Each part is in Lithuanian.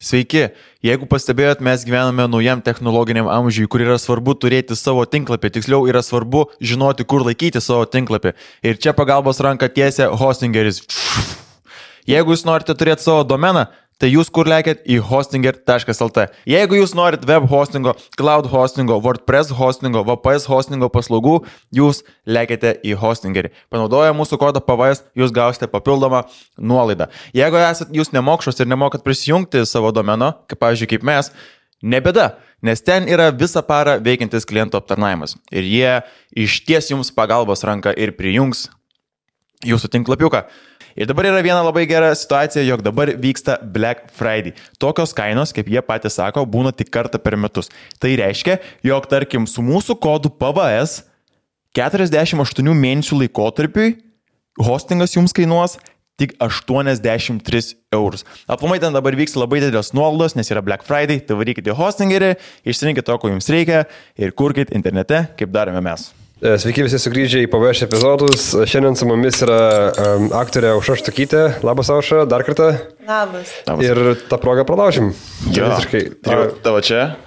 Sveiki, jeigu pastebėjot, mes gyvename naujam technologiniam amžiui, kur yra svarbu turėti savo tinklapį, tiksliau yra svarbu žinoti, kur laikyti savo tinklapį. Ir čia pagalbos ranką tiesia Hostingeris. Jeigu jūs norite turėti savo domeną, tai jūs kur lekiat į hostinger.lt. Jeigu jūs norit web hostingo, cloud hostingo, WordPress hostingo, VPS hostingo paslaugų, jūs lekiate į Hostingerį. Panaudoję mūsų kodą PVS, jūs gausite papildomą nuolaidą. Jeigu esat jūs nemokšos ir nemokat prisijungti savo domeno, kaip pavyzdžiui kaip mes, nebėda, nes ten yra visą parą veikiantis klientų aptarnavimas. Ir jie išties jums pagalbos ranką ir prijungs jūsų tinklapiuką. Ir dabar yra viena labai gera situacija, jog dabar vyksta Black Friday. Tokios kainos, kaip jie patys sako, būna tik kartą per metus. Tai reiškia, jog tarkim su mūsų kodu PVS 48 mėnesių laikotarpiui hostingas jums kainuos tik 83 eurus. Aplamai ten dabar vyks labai didelės nuolaidos, nes yra Black Friday, tai varykite Hostingerį, išsirinkite to, ko jums reikia ir kurkite internete, kaip darome mes. Sveiki visi sugrįžę į PVS epizodus. Šiandien su mumis yra aktorė Aušra Štukytė. Labas, Aušra, dar kartą. Labas. Ir tą progą pralaužim. Jo, tavo čia?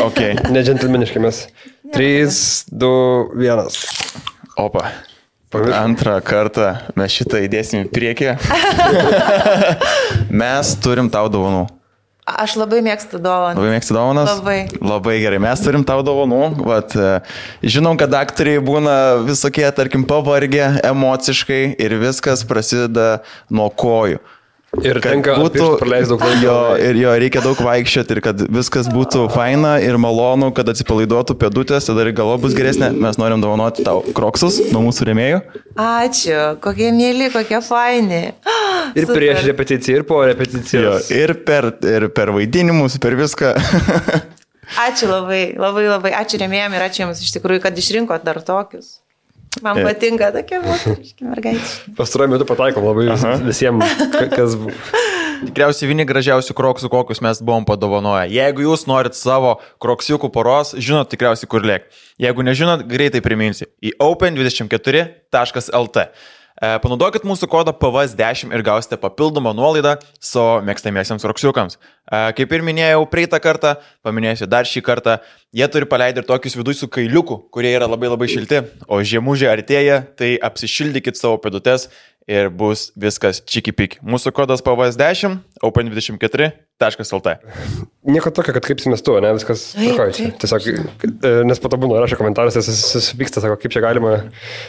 Ok. Ne džentelmeniškai mes. 3, 2, 1. Opa. Antrą kartą mes šitą įdėsim į priekį. Mes turim tau dovanų. Aš labai mėgstu dovanas. Labai mėgstu dovanas? Labai gerai. Mes turim tau dovanų. Vat, žinom, kad aktoriai būna visokie, tarkim, pavargę emociškai ir viskas prasideda nuo kojų. Ir tenka praleisti daug laiko. Jo, reikia daug vaikščioti ir kad viskas būtų faina ir malonu, kad atsipalaiduotų pėdutės, tada ir galva bus geresnė. Mes norim dovanoti tau kroksus nuo mūsų rėmėjų. Ačiū, kokie mėly, kokie faini. Ir super. Prieš repeticiją, ir po repeticijos. Jo, ir per vaidinimus, per viską. Ačiū labai. Ačiū rėmėjams ir ačiū jums iš tikrųjų, kad išrinkot dar tokius. Man patinka tokie moteriški mergaitė. Pastaruoju metu pataikom labai visiems, kas... Tikriausiai vieni gražiausių kroksų, kokius mes buvom padovanoję. Jeigu jūs norit savo kroksiukų poros, žinot tikriausiai kur lėk. Jeigu nežinot, greitai priminsiu. Į open24.lt. Panaudokit mūsų kodą PVS10 ir gausite papildomą nuolaidą savo mėgstamiesiems kroksiukams. Kaip ir minėjau praeitą kartą, paminėsiu dar šį kartą, jie turi paleidę ir tokius vidui su kailiuku, kurie yra labai labai šilti, o žiemužė artėja, tai apsišildykit savo pėdutes ir bus viskas čiki-piki. Mūsų kodas PVS10, open24.lt. Nieko tokio, kad kaip mes tu, ne, viskas tvarkoja. Tiesiog, nes po to būna rašo komentaruose, susipyksta, sako, kaip čia galima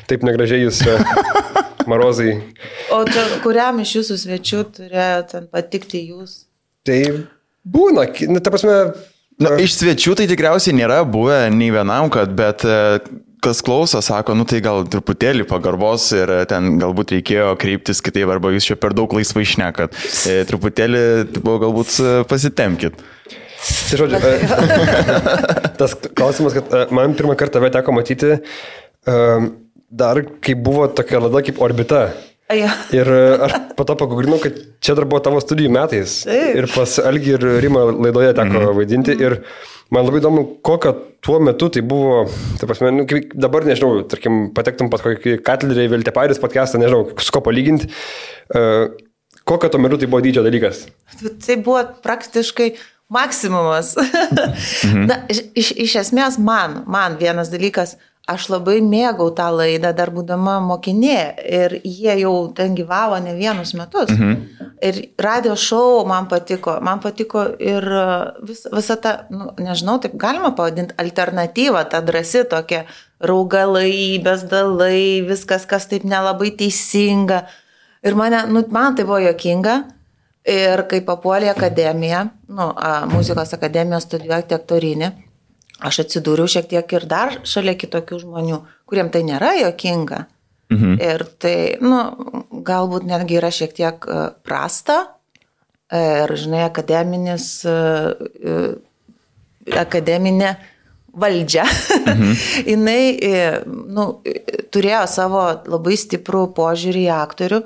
taip negražiai jūs marozai. O čia kuriam iš jūsų svečių turėjo ten patikti jūs? Tai būna, ta prasme... Iš svečių tai tikriausiai nėra buvę nei vienam, bet kas klauso, sako, tai gal truputėlį pagarbos ir ten galbūt reikėjo kreiptis kitaip, arba jūs čia per daug laisvai šnekat. Truputėlį galbūt pasitemkit. Tai žodžiu, tas klausimas, kad man pirmą kartą tave teko matyti, dar kai buvo tokia laida kaip Orbita. Ir aš po to pagugrinau, kad čia dar buvo tavo studijų metais. Ir pas Algį ir Rimą laidoje teko vaidinti. Ir man labai įdomu, kokio tuo metu tai buvo, tai prasme, dabar nežinau, tarkim, patektum pat kokį Katlerį, Viltepairis podcastą, nežinau, su ko palyginti. Kokio tuo metu tai buvo dydžio dalykas? Tai buvo praktiškai maksimumas. Na, iš esmės man vienas dalykas, aš labai mėgau tą laidą dar būdama mokinė ir jie jau ten gyvavo ne vienus metus. Ir radio šou man patiko ir visa ta, nežinau, taip galima pavadinti, alternatyva, ta drąsi tokia, raugalai, bezdalai, viskas, kas taip nelabai teisinga. Ir man tai buvo juokinga. Ir kai papuolė į akademiją, muzikos akademiją studijuoti aktorinį, aš atsidūriau šiek tiek ir dar šalia kitokių žmonių, kuriem tai nėra juokinga. Ir tai, galbūt netgi yra šiek tiek prasta. Ir, žinai, akademinė valdžia. Jinai, turėjo savo labai stiprų požiūrį į aktorių.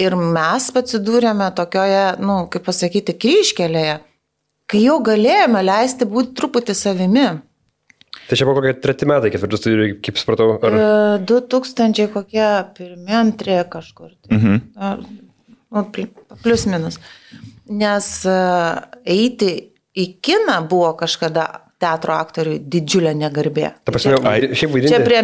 Ir mes atsidūrėme tokioje, kaip pasakyti, kryžkelėje, kai jau galėjome leisti būti truputį savimi. Tai čia buvo kokie 3 metai, 4 studijų, kaip supratau? Ar... 2000 kokie 1, 2 kažkur. Plius minus. Nes eiti į kiną buvo kažkada teatro aktoriui didžiulė negarbė. Ta prasme, šiaip vaidinti. Čia prie,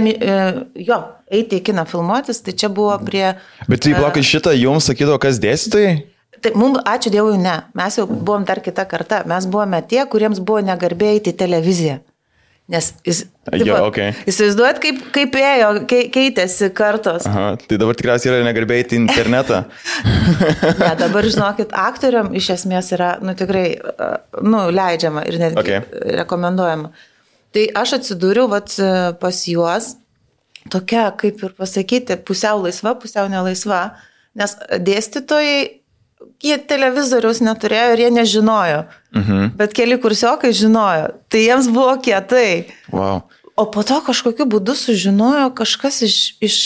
eiti į kiną filmuotis, tai čia buvo prie... Bet tai plakai šitą jums sakydavo, kas dėstytojai? Tai mums, ačiū Dievui, ne. Mes jau buvom dar kita karta. Mes buvome tie, kuriems buvo negarbė eiti į televiziją. Nes įsivaizduojat, kaip ėjo, keitėsi kartos. Aha, tai dabar tikriausiai yra negarbė eiti į internetą. Ne, dabar, žinokit, aktoriam iš esmės yra, tikrai, leidžiama ir netgi rekomenduojama. Tai aš atsidūriau pas juos, tokia, kaip ir pasakyti, pusiau laisva, pusiau nelaisva, nes dėstytojai, jie televizoriaus neturėjo ir jie nežinojo, bet keli kursiokai žinojo, tai jiems buvo kietai. Wow. O po to kažkokiu būdu sužinojo kažkas iš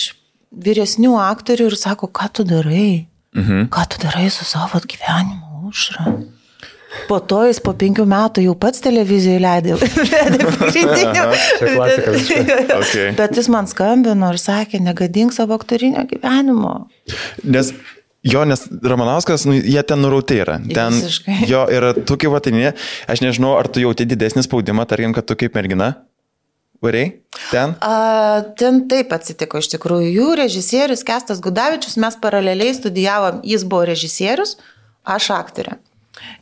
vyresnių aktorių ir sako, ką tu darai? Ką tu darai su savo gyvenimu, Aušra? Po to jis po 5 metų jau pats televizijoje leidė pagrindinių. Bet jis man skambino ir sakė, negadink savo aktorinio gyvenimo. Nes Ramanauskas, jie ten nurauti yra. Ten jo yra tu kaip vatinė. Aš nežinau, ar tu jauti didesnį spaudimą, tarkim, kad tu kaip mergina variai ten? Ten taip atsitiko iš tikrųjų. Jų režisierius Kęstas Gudavičius, mes paraleliai studijavom, jis buvo režisierius, aš aktorė.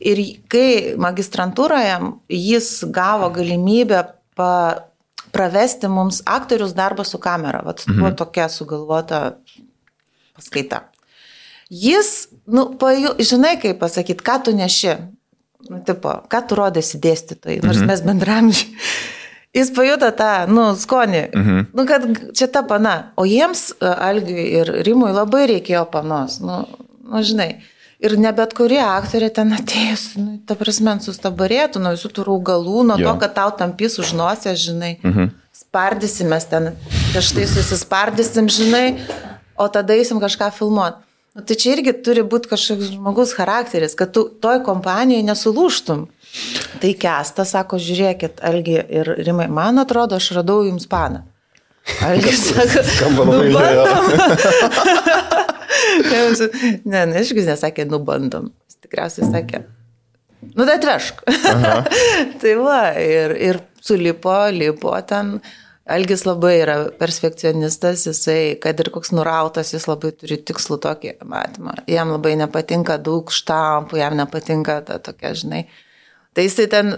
Ir kai magistrantūroje jis gavo galimybę pravesti mums aktorius darbą su kamera. Buvo tokia sugalvota paskaita. Jis, žinai kaip pasakyti, ką tu neši, ką tu rodėsi dėstytojai, nors mes bendramžiai. Jis pajuto tą, skonį, kad čia ta pana. O jiems, Algiui ir Rimui, labai reikėjo panos, žinai. Ir ne bet kurie aktoriai ten atėjus, ta prasme, sustabarėtų nuo visų tų raugalų, nuo to, kad tau tampys už nosės, žinai. Spardysimės ten, štai susispardysim, žinai, o tada eisim kažką filmuoti. Tai čia irgi turi būti kažkoks žmogus charakteris, kad tu toj kompanijoje nesulūštum. Tai Kęstas sako, žiūrėkit, Algi ir Rimai, man atrodo, aš radau jums paną. Algis sako, bandom. Ne, išgis nesakė, bandom. Jis tikriausiai sakė, tai atvešk. Tai va, ir sulipo ten. Algis labai yra perfekcionistas, jisai, kad ir koks nurautas, jis labai turi tikslų tokį matymą. Jam labai nepatinka daug štampų, jam nepatinka ta tokia, žinai. Tai jisai ten,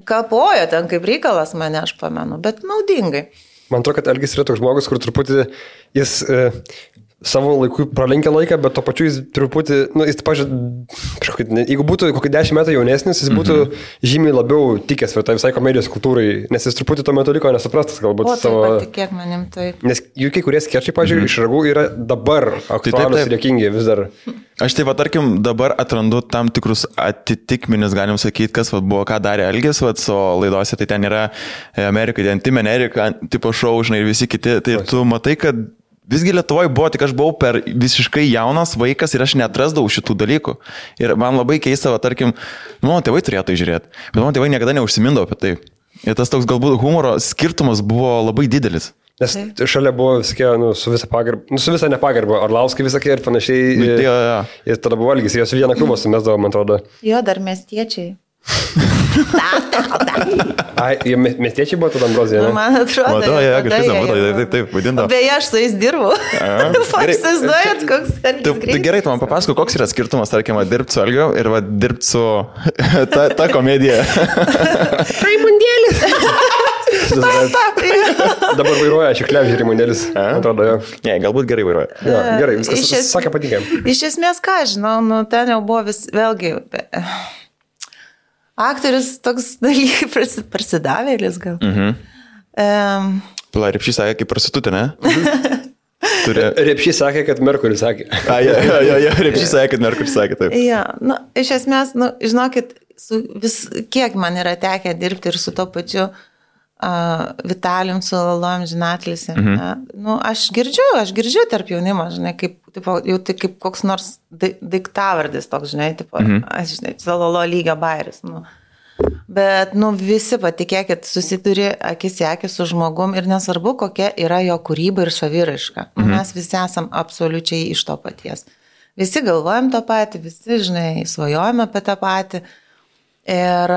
kapojo ten kaip reikalas mane, aš pamenu, bet naudingai. Man atrodo, kad Algis yra toks žmogus, kur truputį jis savo laikui pralenkia laiką, bet to pačiu jis truputį, jis, pažiūrėjau, jeigu būtų kokį 10 metų jaunesnis, jis būtų žymiai labiau tikęs tai visai komedijos kultūrai, nes jis truputį tuo metu liko nesuprastas, galbūt savo... O, patikėk manim, taip. Nes jų kai kurie skečai, pažiūrėjau, iš Ragų yra dabar aktualūs ir juokingi vis dar. Aš tai, tarkim, dabar atrandu tam tikrus atitikmenis, galim sakyti, kas buvo, ką darė Algis, o laidose tai ten yra Amerika, Tim Amerika, tipo šou, žinai, ir visi kiti, tai tu matai, kad visgi Lietuvoje buvo, tik aš buvau per visiškai jaunas vaikas ir aš neatrasdavau šitų dalykų. Ir man labai keista, tarkim, mano tėvai turėjo tai žiūrėti, bet mano tėvai niekada neužsimindavo apie tai. Ir tas toks galbūt humoro skirtumas buvo labai didelis. Nes šalia buvo visokie, su visa pagarba, su visa nepagarba, Orlauskai visokie ir panašiai. Ir tada buvo Algis, jos vieną klubą sumesdavo, man atrodo. Jo, dar miestiečiai. Miestiečiai buvo tada Ambrozija, ne? Man atrodo, taip, vadindavo. Beje, aš su jais dirbu. Įsivaizduojat, koks Tai gerai, tu man papasako, koks yra skirtumas, tarkim, dirbti su Algiu ir dirbti su ta komedija. Raimundėlis. Dabar vairuoja Šiklevičius Raimundėlis. Atrodo, jo. Ne, galbūt gerai vairuoja. Gerai, viskas sakė patikė. Iš esmės, ką žinau, ten jau buvo vėlgi... Aktorius toks dalykai prasidavėlis gal. Pala, Repšys sakė, kaip prostitutė, ne? Repšys sakė, kad Merkuris sakė. Repšys sakė, kad Merkuris sakė, taip. Ja, iš esmės, žinokit, kiek man yra tekę dirbti ir su to pačiu Vitalijum, su Lalom Žinatlis. Aš girdžiu tarp jaunimo, žinai, jau tai kaip koks nors daiktavardis toks, žinai, aš žinai, Lalo lygio bairis. Bet, visi, patikėkit, susiduri akis į akį su žmogum ir nesvarbu, kokia yra jo kūryba ir saviraiška. Mes visi esam absoliučiai iš to paties. visi galvojam tą patį, visi, žinai, svajojame apie tą patį. Ir...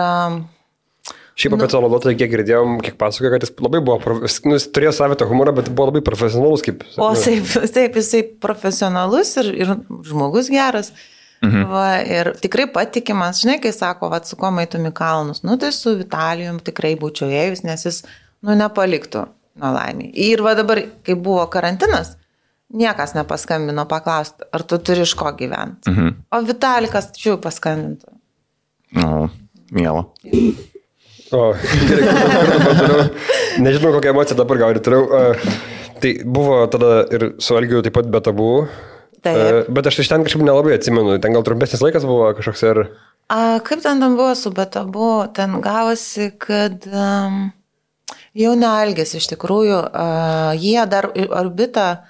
Šiaip apie tą laidotoją, kiek girdėjom, kiek pasakojo, kad jis labai buvo, jis turėjo savitą humorą, bet buvo labai profesionalus. O taip, jisai profesionalus ir žmogus geras. Va, ir tikrai patikimas, žinai, kai sako, va, su kuo maitum į kalnus, tai su Vitalijum tikrai būčiau ėjus, nes jis, nepaliktų nelaimį. Ir va dabar, kai buvo karantinas, niekas nepaskambino paklausti, ar tu turi iš ko gyventi. O Vitalikas čia paskambintų. Miela. O, gerai, nežinau, kokią emociją dabar gal ir turėjau. Tai buvo tada ir su Algiu taip pat be tabų. Taip. Bet aš iš ten kažkaip nelabai atsimenu. Ten gal trumpesnis laikas buvo kažkoks ir... Kaip ten buvo su be tabų? Ten gavosi, kad jau ne Algis iš tikrųjų. Jie dar Orbitą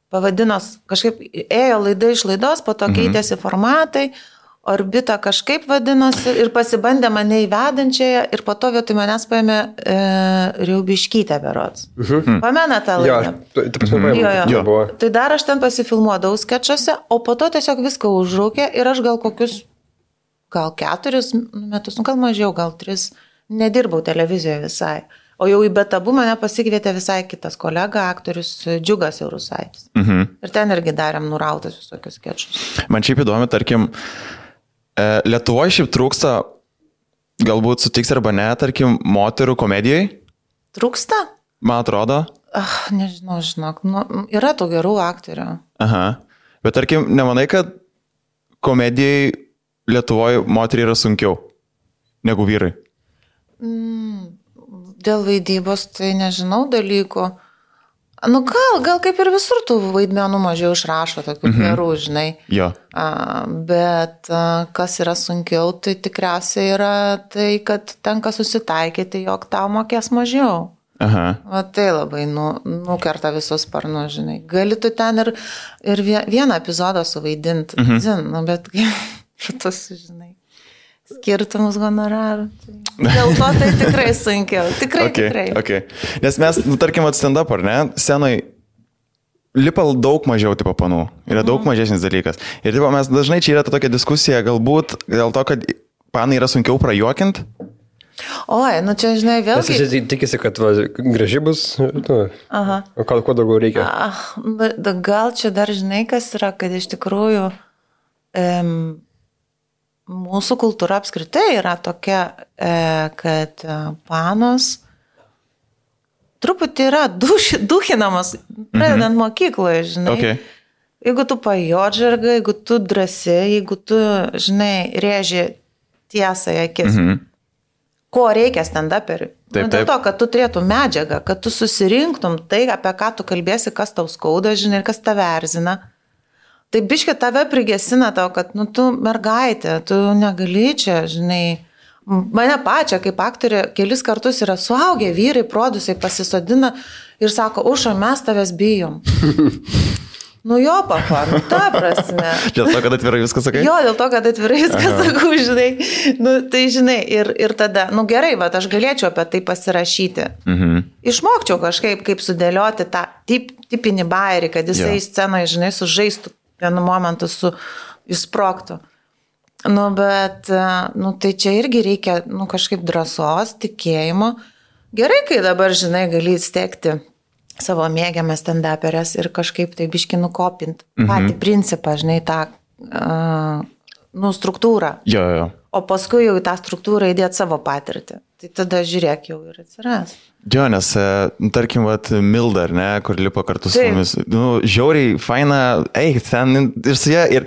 pavadino, kažkaip ėjo laida iš laidos, po to keitėsi formatai. Orbita kažkaip vadinosi ir pasibandė mane įvedančiąją ir po to vietoj manęs paėmė Riaubiškytę berods. Pamena tą laidą? Jo. Tai dar aš ten pasifilmuodavau skečuose, o po to tiesiog viską užrūkė ir aš gal 4 metus, gal mažiau, gal 3, nedirbau televizijoje visai. O jau į betabų mane pasikvietė visai kitas kolega, aktorius Džiugas Eurusaitis. Ir ten irgi darėm nurautas visokius skečus. Man šiaip įdomi, tarkim, Lietuvoje šiaip trūksta, galbūt sutiks arba ne, tarkim, moterų komedijai? Trūksta? Man atrodo. Nežinau, žinok, yra tų gerų aktorių. Aha, bet tarkim, nemanai, kad komedijai Lietuvoje moteriai yra sunkiau negu vyrai? Dėl vaidybos tai nežinau dalykų. Gal kaip ir visur tų vaidmenų mažiau išrašo, tokių gerų, žinai. Jo. Bet kas yra sunkiau, tai tikriausiai yra tai, kad tenka susitaikyti, jog tau mokės mažiau. Aha. Va tai labai nukerta visus sparnus, žinai. Gali tu ten ir vieną epizodą suvaidinti, bet šitus, žinai. Skirtumus honorarų. Dėl to tai tikrai sunkiau. Tikrai. Okay. Nes mes, tarkim, stand-up, ar ne, scenoj lipa daug mažiau tipo panų. Yra daug mažesnis dalykas. Ir tipo, mes dažnai čia yra ta tokia diskusija, galbūt dėl to, kad panai yra sunkiau prajuokinti. Oi, čia, žinai, vėlgi... Nes jis tikisi, kad graži bus, o kuo daugiau reikia. Gal čia dar, žinai, kas yra, kad iš tikrųjų... Mūsų kultūra apskritai yra tokia, kad panos truputį yra duchinamas, pradedant mokykloje, žinai. Okay. Jeigu tu pajodžarga, jeigu tu drąsi, jeigu tu, žinai, rėži tiesą į akis. Ko reikia stand-uperiui? Dėl to, kad tu turėtum medžiagą, kad tu susirinktum tai, apie ką tu kalbėsi, kas tau skauda, žinai, ir kas tave erzina. Tai biškė tave prigesina tau, kad, tu mergaitė, tu negali čia, žinai, mane pačią kaip aktorė kelis kartus yra suaugę vyrai, produsai pasisodina ir sako, Uša, mes tavęs bijom. Jo, papa, ta prasme. Dėl to, kad atvirai viską sakai? Jo, dėl to, kad atvirai viską sakau, žinai. Tai, žinai, ir tada, gerai, bet aš galėčiau apie tai pasirašyti. Išmokčiau kažkaip, kaip sudėlioti tą tipinį bairį, kad jisai scenoje, žinai, sužaistų vienu momentu įsprogtų. Bet, tai čia irgi reikia, kažkaip drąsos, tikėjimo. Gerai, kai dabar, žinai, gali įstekti savo mėgiamas stand-uperės ir kažkaip tai biškį nukopinti patį principą, žinai, tą struktūrą. Jo. O paskui jau į tą struktūrą įdėti savo patirtį. Tai tada žiūrėk jau ir atsiras. Jo, nes, tarkim, Milda, ne, kur lipa kartu su mumis. Žiauriai, faina, ten ir su ją, ir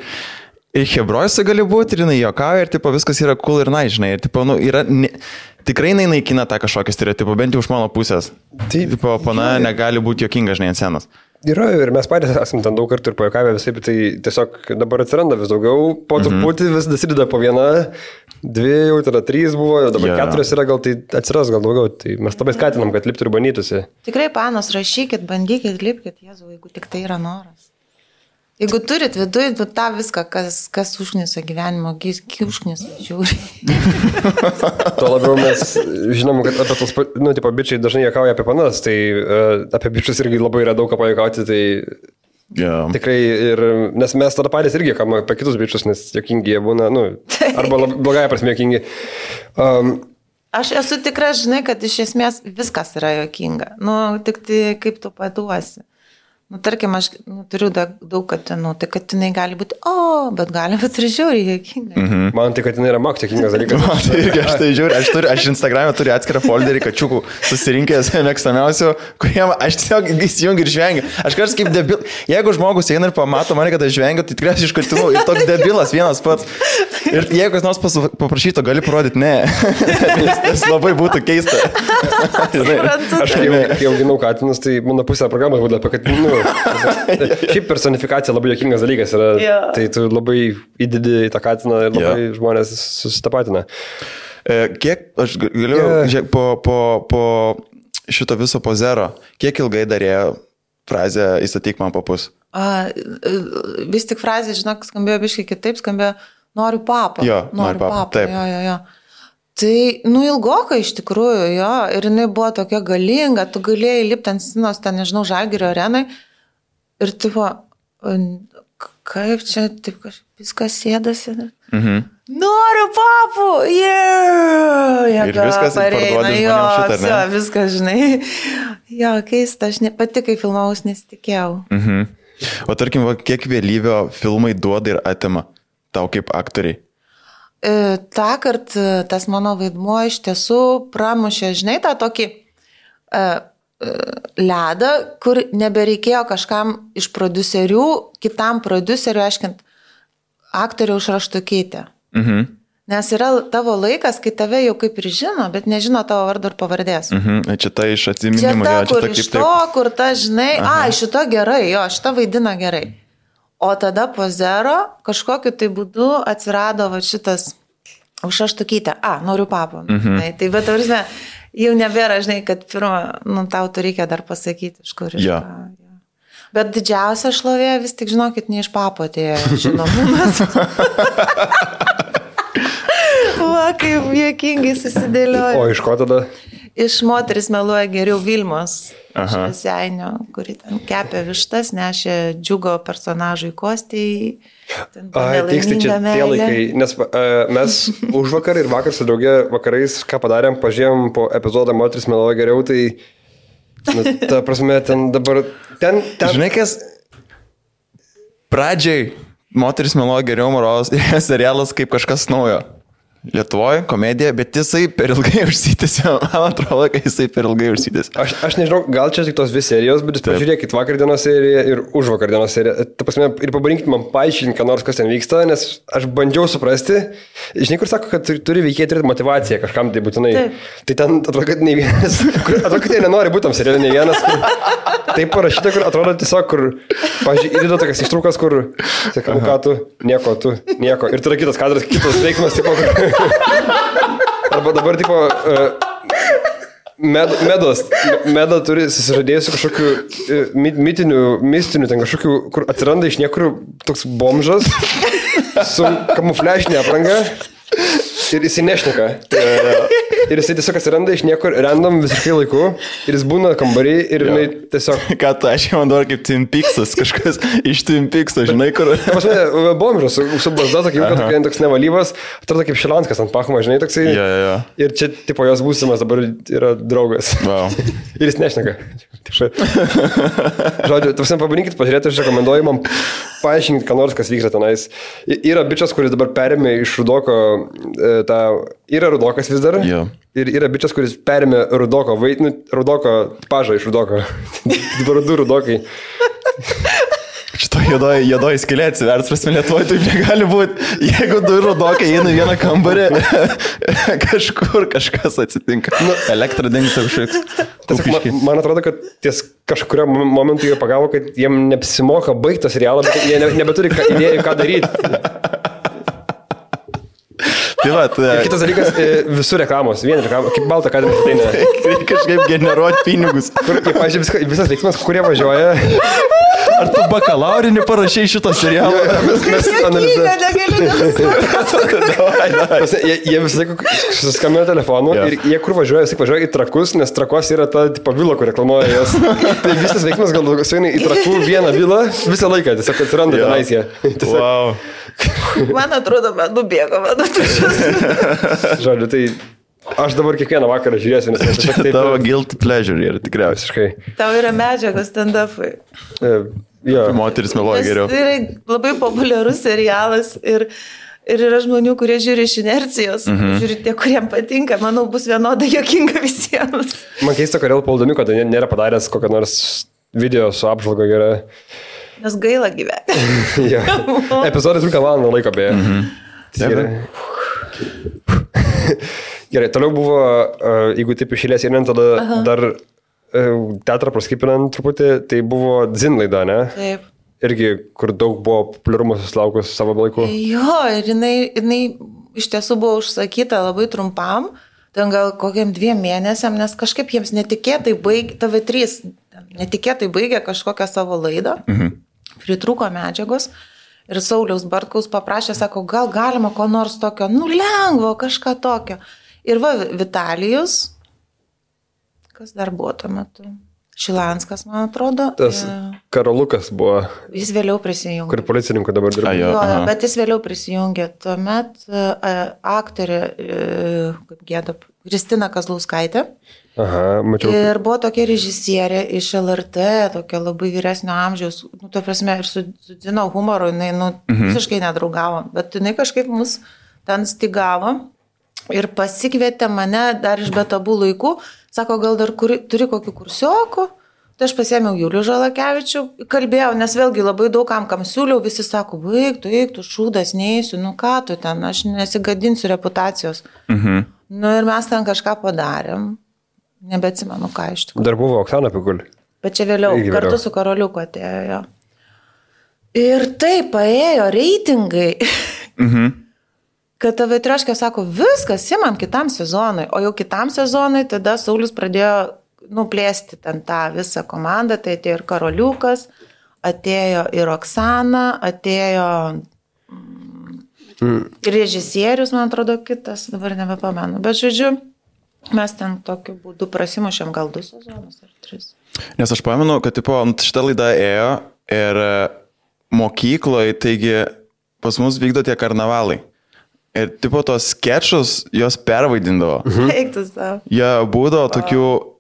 Hebrojose gali būti, ir jinai juokauja, ir tipo, viskas yra cool ir nice, žinai. Ir tipo, yra, tikrai naikina tą kažkokį stereotipą, bent jau iš mano pusės. Tipo, pana negali būti juokinga, žinai, ant scenos. Yra ir mes patys esame ten daug kartų ir pajuokavę visai, bet tai tiesiog dabar atsiranda vis daugiau, po truputį vis dasideda po 1, 2, jau tada 3 buvo, dabar 4 yra, gal tai atsiras gal daugiau, tai mes labai skatinam, kad liptų ir bandytųsi. Tikrai, panos, rašykit, bandykit, lipkit, Jėzau, jeigu tik tai yra noras. Jeigu turit viduje tą viską, kas užknisa gyvenimo, užknisa žiūri. Tuo labiau mes žinom, kad apie tos, bičiai dažnai juokauja apie panas, tai apie bičius irgi labai yra daug ką pajuokauti, tai Yeah. Tikrai, nes mes tada patys irgi kam apie kitus bičius, nes jokingi jie būna, arba blogąją prasme jokingi. Aš esu tikra, žinai, kad iš esmės viskas yra jokinga. Tik tai kaip tu paduosi. Tarkim, aš turiu daug katinų, tai katinai gali būti, bet gali būti ir žiauriai jokinga. Man tai katinai yra maks jokingas dalykas. Man tai irgi, aš tai žiūriu, aš Instagram'e turiu atskirą folderį kačiukų susirinkęs mėgstamiausių, kuriem aš tiesiog įsijungiu ir žvengiu. Aš kažkas kaip debil, jeigu žmogus eina ir pamato mane, kad aš žvengiu, tai tikriausiai iš katinų ir toks debilas vienas pats. Ir jeigu kas nors paprašyto, gali parodyti, ne. Tas labai būtų keista. Aš kai auginau katinus, tai mano pusė programos būdavo apie katinų. Šiaip personifikacija labai jokingas dalykas yra, tai tu labai įdedi į tą katiną ir labai žmonės susitapatina. Kiek, aš galiu, po šito viso pozero, kiek ilgai darėjo frazę įstatyk man papus? Vis tik frazė, žinok, skambėjo biškai kitaip, skambėjo noriu papą. Jo, noriu papą, taip. Jo. Tai, ilgokai iš tikrųjų, jo, ir jinai buvo tokia galinga, tu galėjai lipti ant scenos, ten, nežinau, Žalgirio arenai, ir tipo, kaip čia, taip kažkaip viskas sėdasi. Noriu papų, ir viskas parduodi žmonėms šitą, ne? Jo, viskas, žinai. Jo, keista, aš pati, kai filmavus, nesitikėjau. O tarkim, kiek vėlyvio filmai duoda ir atima tau kaip aktoriai? Tąkart tas mano vaidmuo iš tiesų pramušė, žinai, tą tokį ledą, kur nebereikėjo kažkam iš prodiuserių, kitam prodiuseriu aiškint, aktoriaus raštukytę. Nes yra tavo laikas, kai tave jau kaip ir žino, bet nežino tavo vardo ir pavardės. Čia ta iš atsiminimų. Čia ta, kur iš to, kur ta, žinai, šito gerai, šita vaidina gerai. O tada po zero kažkokiu tai būdu atsirado šitas užraštukytė. Noriu papą. Tai bet tavrime, jau nebėra, žinai, kad pirmą, tau tu reikia dar pasakyti, iš kur iš ką. Bet didžiausia šlovė vis tik, žinokit, ne iš papo atėjo žinomumas. Kaip juokingai susidėlioja. O iš ko tada? Iš moteris meluoja geriau Vilmos Švieseinio, kuri ten kepė vištas, nešė džiugo personažui Kostijai. Tiksliai čia tie laikai, nes mes už vakar ir vakar su draugė vakarais, ką padarėm, pažiūrėjom po epizodą moteris meluoja geriau, tai ta prasme ten dabar... Žinai, kas pradžiai moteris meluoja geriau moralas serialas kaip kažkas naujo. Lietuvoje komedija, bet jisai per ilgai užsitęsė. Man atrodo, kad jisai per ilgai užsitęsė. Aš nežinau, gal čia tik tos dvi serijos, bet jūs pažiūrėkit vakar dienos seriją ir už vakar dienos seriją. Ta prasme, ir pabandykit man paaiškinti, ką nors kas ten vyksta, nes aš bandžiau suprasti. Žinai, kur sako, kad turi veikėjai turėti motivaciją kažkam tai būtinai. Tai ten atrodo, kad ne vienas, atrodo, kad jie nenori būti tam serialė, ne vienas. Taip parašyta, kur atrodo tiesiog, kur, pažiūrėjau, įdėdo tokias ištraukas, kur, sakau, ką tu, nieko. Ir tada kitas kadras, kitas veiksmas, tipo, arba dabar, tipo, Meda turi susižadėjusi kažkokių mistinių, ten kažkokių, kur atsiranda iš niekur toks bomžas su kamufliažinė apranga ir jisai nešneka. Ir jisai tiesiog atsiranda iš niekur random visiškai laiku ir jis būna kambarį ir jinai tiesiog... Ką tu, aš jau man dabar kaip Twin Peaksas, kažkas iš Twin Peakso, žinai, kur... Pasme, bomžas, su barzda, toks nevalyvas, atrodo kaip Šilanskas ant Pachmo, žinai, toksai. Ir čia, tipo, jos būsimas dabar yra draugas. Ir jis nešneka. Žodžiu, tu pabandykit pažiūrėti, aš rekomenduoju man paaiškinti, ką nors, kas vyksta tenais. Yra bičias, kuris dabar perėmė iš Rudoko tą... Yra Rudokas vis dar. Ir yra bičias, kuris perėmė Rudoko pažą iš Rudoko. Dabar du Rudokai. Šito juodoji skylė atsivers, prasme, Lietuvoje taip negali būti. Jeigu du Rudokai eina vieną kambarį, kažkur kažkas atsitinka. Elektra dingsta kažkoks. Man atrodo, kad ties kažkurio momentu jie pagavo, kad jiem neapsimoka baigti serialą, bet jie nebeturi idėjų, ką daryti. Kitas dalykas, visur reklamos, vien reklamos, kaip balta kadras ateina. Reikia kažkaip generuoti pinigus. Kur, pavyzdžiui, visas veiksmas, kurie važiuoja, Ar tu bakalaurinį parašai šito serialo? Mes jie visą laiką suskambėjo telefonu ir jie kur važiuoja, jis važiuoja į Trakus, nes Trakos yra ta vila, kur reklamuoja jas. Tai visas veiksmas gal sueina į Trakų vieną vilą visą laiką, tiesiog atsiranda tenais jie. Wow. Man atrodo, man nubėgo, man tušas. Žodžiu, tai aš dabar kiekvieną vakarą žiūrėsiu, nes aš tiesiog taip... Tavo guilty pleasure yra tikriausiai. Tau yra medžiagos stand-up'ai. Jo. Moteris meluoja geriau. Tai yra labai populiarus serialas ir yra žmonių, kurie žiūri iš inercijos, žiūri tie, kuriems patinka, manau, bus vienodai juokinga visiems. Man keista, kodėl Paul Daniuko nėra padaręs kokią nors video su apžvalga gera. Nes gaila gyventi. Ja. Epizodas trunka valandą laiko beje. Gerai, toliau buvo, jeigu taip išėlės ir tada dar teatrą praskipinant truputį, tai buvo Zin laida, ne? Taip. Irgi, kur daug buvo populiarumo susilaukus savo laiku. Jo, ir jinai iš tiesų buvo užsakyta labai trumpam, ten gal kokiam 2 mėnesiam, nes kažkaip jiems netikėtai baigė, TV3 netikėtai baigė kažkokią savo laidą, pritrūko medžiagos ir Sauliaus Bartkaus paprašė, sako, gal galima ko nors tokio, lengvo, kažką tokio. Ir va, Vitalijus, kas dar buvo tuo metu? Šilanskas, man atrodo. Tas Karolukas buvo. Jis vėliau prisijungė. Kur policininkų dabar dirba. Jo, bet jis vėliau prisijungė. Tuomet aktorė, kaip gėda, Kristina Kazlauskaitė. Aha, mačiau. Ir buvo tokia režisierė iš LRT, tokia labai vyresnio amžiaus, tuo prasme, ir su Dzino humoru, jinai visiškai nedraugavo, bet jinai kažkaip mus ten stigavo ir pasikvietė mane dar iš betabų laikų, sako, gal dar turi kokių kursiokų, tai aš pasėmiau Julių Žalakevičių, kalbėjau, nes vėlgi labai daug kam siūliau, visi sako, baig, tu šūdas, neįsiu, ką tu ten, aš nesigadinsiu reputacijos. Ir mes ten kažką padarėm. Nebeatsimenu, ką iš tikrųjų. Dar buvo Oksana Pikul. Bet čia vėliau, kartu su Karoliuku atėjo. Ir taip, paėjo reitingai, kad TV3 sako, viskas, imam kitam sezonui. O jau kitam sezonui tada Saulius pradėjo plėsti ten tą visą komandą. Tai atėjo ir Karoliukas, atėjo ir Oksana, atėjo ir režisierius, man atrodo, kitas, dabar nebepamenu. Bet žodžiu, mes ten tokiu būdu prasimušėm gal 2 sezonus ar 3. Nes aš pamenu, kad šitą laidą ėjo ir mokykloje, taigi pas mus vykdo tie karnavalai. Ir tos skečus jos pervaidindavo. Eiktus tau. Jie būdavo tokių,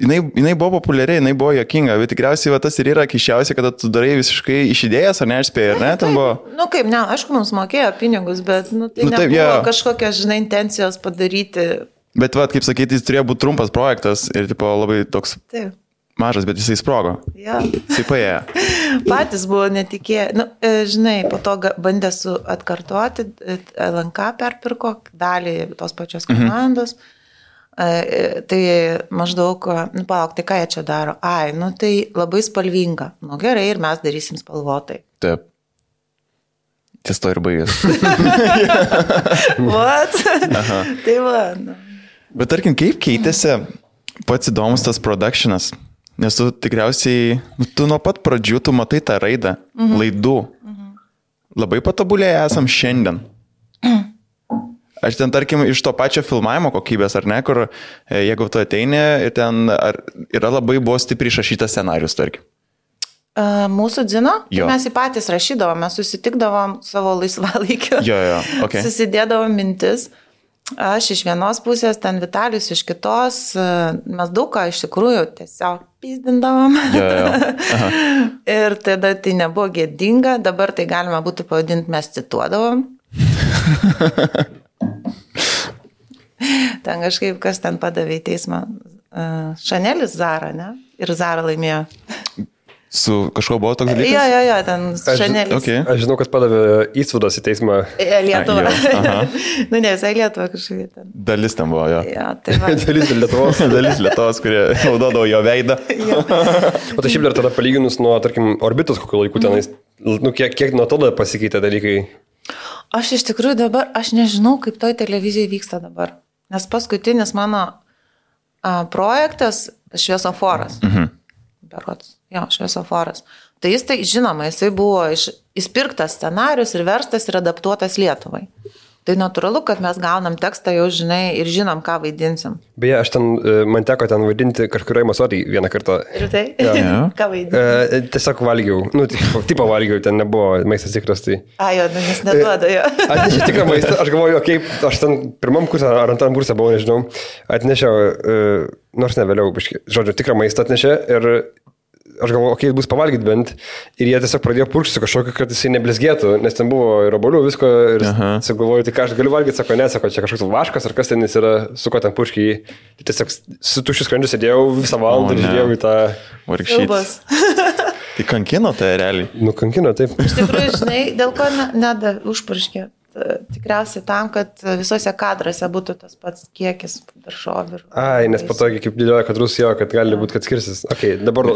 jinai buvo populiariai, jinai buvo juokinga, bet tikriausiai tas ir yra kišiausia, kada tu darai visiškai iš idėjas, ar neišspėjai, ar ne? Kaip, ne, aišku, mums mokėjo pinigus, bet tai nebuvo kažkokios, intencijos padaryti. Bet, kaip sakyti, jis turėjo būti trumpas projektas ir labai toks mažas, bet jisai sprogo. Jisai paėjo. Patys buvo netikėję. Po to bandė atkartoti, LNK perpirko dalį tos pačios komandos. Tai maždaug, palauk, tai ką jie čia daro? Tai labai spalvinga. Gerai, ir mes darysim spalvotai. Taip. Ties to ir baigės. What? Tai va. Bet tarkim, kaip keitėsi pats įdomus tas productionas? Nes tu tikriausiai, tu nuo pat pradžių, tu matai tą raidą, laidų. Labai patobulėję esam šiandien. Aš ten, tarkim, iš to pačio filmavimo kokybės, ar ne, kur jeigu tu ateini ir ten yra labai buvo stipriai išrašytas scenarius, tarkim. Mūsų Dzino, mes į patys rašydavom, mes susitikdavom savo laisvalaikio, susidėdavom mintis. Aš iš vienos pusės, ten Vitalijus iš kitos, mes daug ką iš tikrųjų tiesiog pizdindavom. Ir tada tai nebuvo gėdinga, dabar tai galima būtų pavadinti, mes cituodavom. Ten kažkaip, kas ten padavė į teismą, Šanelis Zara, ne? Ir Zara laimėjo. Su kažko buvo toks dalykas? Jo, ten Šanelis. Aš žinau, kas padavė Įsvudas į teismą. Lietuvą. Ne, visai Lietuvą kažkaip ten. Dalis ten buvo, jo. Dalis Lietuvos. Dalis Lietuvos, kurie naudodavo jo veidą. O tai šiaip dar tada palyginus nuo, tarkim, Orbitos kokiu laiku tenais, kiek nuo tada pasikeitė dalykai? Aš iš tikrųjų dabar, aš nežinau, kaip toj televizijai vyksta dabar. Nes paskutinis mano projektas Šviesoforas. berods, šviesoforas. Tai jis, žinoma, jisai buvo įspirktas scenarius ir verstas ir adaptuotas Lietuvai. Tai natūralu, kad mes gaunam tekstą, jau žinai ir žinom, ką vaidinsim. Beje, man teko ten vaidinti kažkurioje masodį vieną kartą. Ir tai? Ja. Ką vaidinti? Tiesiog valgiau. Tipo valgiau, ten nebuvo maistas tikras. Tai... Jis neduoda jo. Atnešiau tikrą maistą, aš galvoju, aš ten pirmam kursą ar antram kursą buvau, nežinau. Atnešiau, nors ne vėliau, žodžiu, tikrą maistą atnešė ir... Aš galvoju, bus pavalgyti bent. Ir jie tiesiog pradėjo purkšti kažkokį, kad jisai neblizgėtų, nes ten buvo ir obuolių, visko. Ir galvoju, tai ką aš galiu valgyti, sako, čia kažkoks vaškas, ar kas ten jis yra, su ko ten purkšti jį. Tai tiesiog su tuščiu skrandžiu sėdėjau visą valandą ir žiūrėjau į tą... Vargšytas. Tai kankino tai realiai. Kankino, taip. Iš tikrųjų, žinai, dėl ko užpurškė. Tikriausiai tam, kad visose kadruose būtų tas pats kiekis daržovių. Nes po to, kaip dėlioja kadrus jo, kad gali būti, kad skirsis.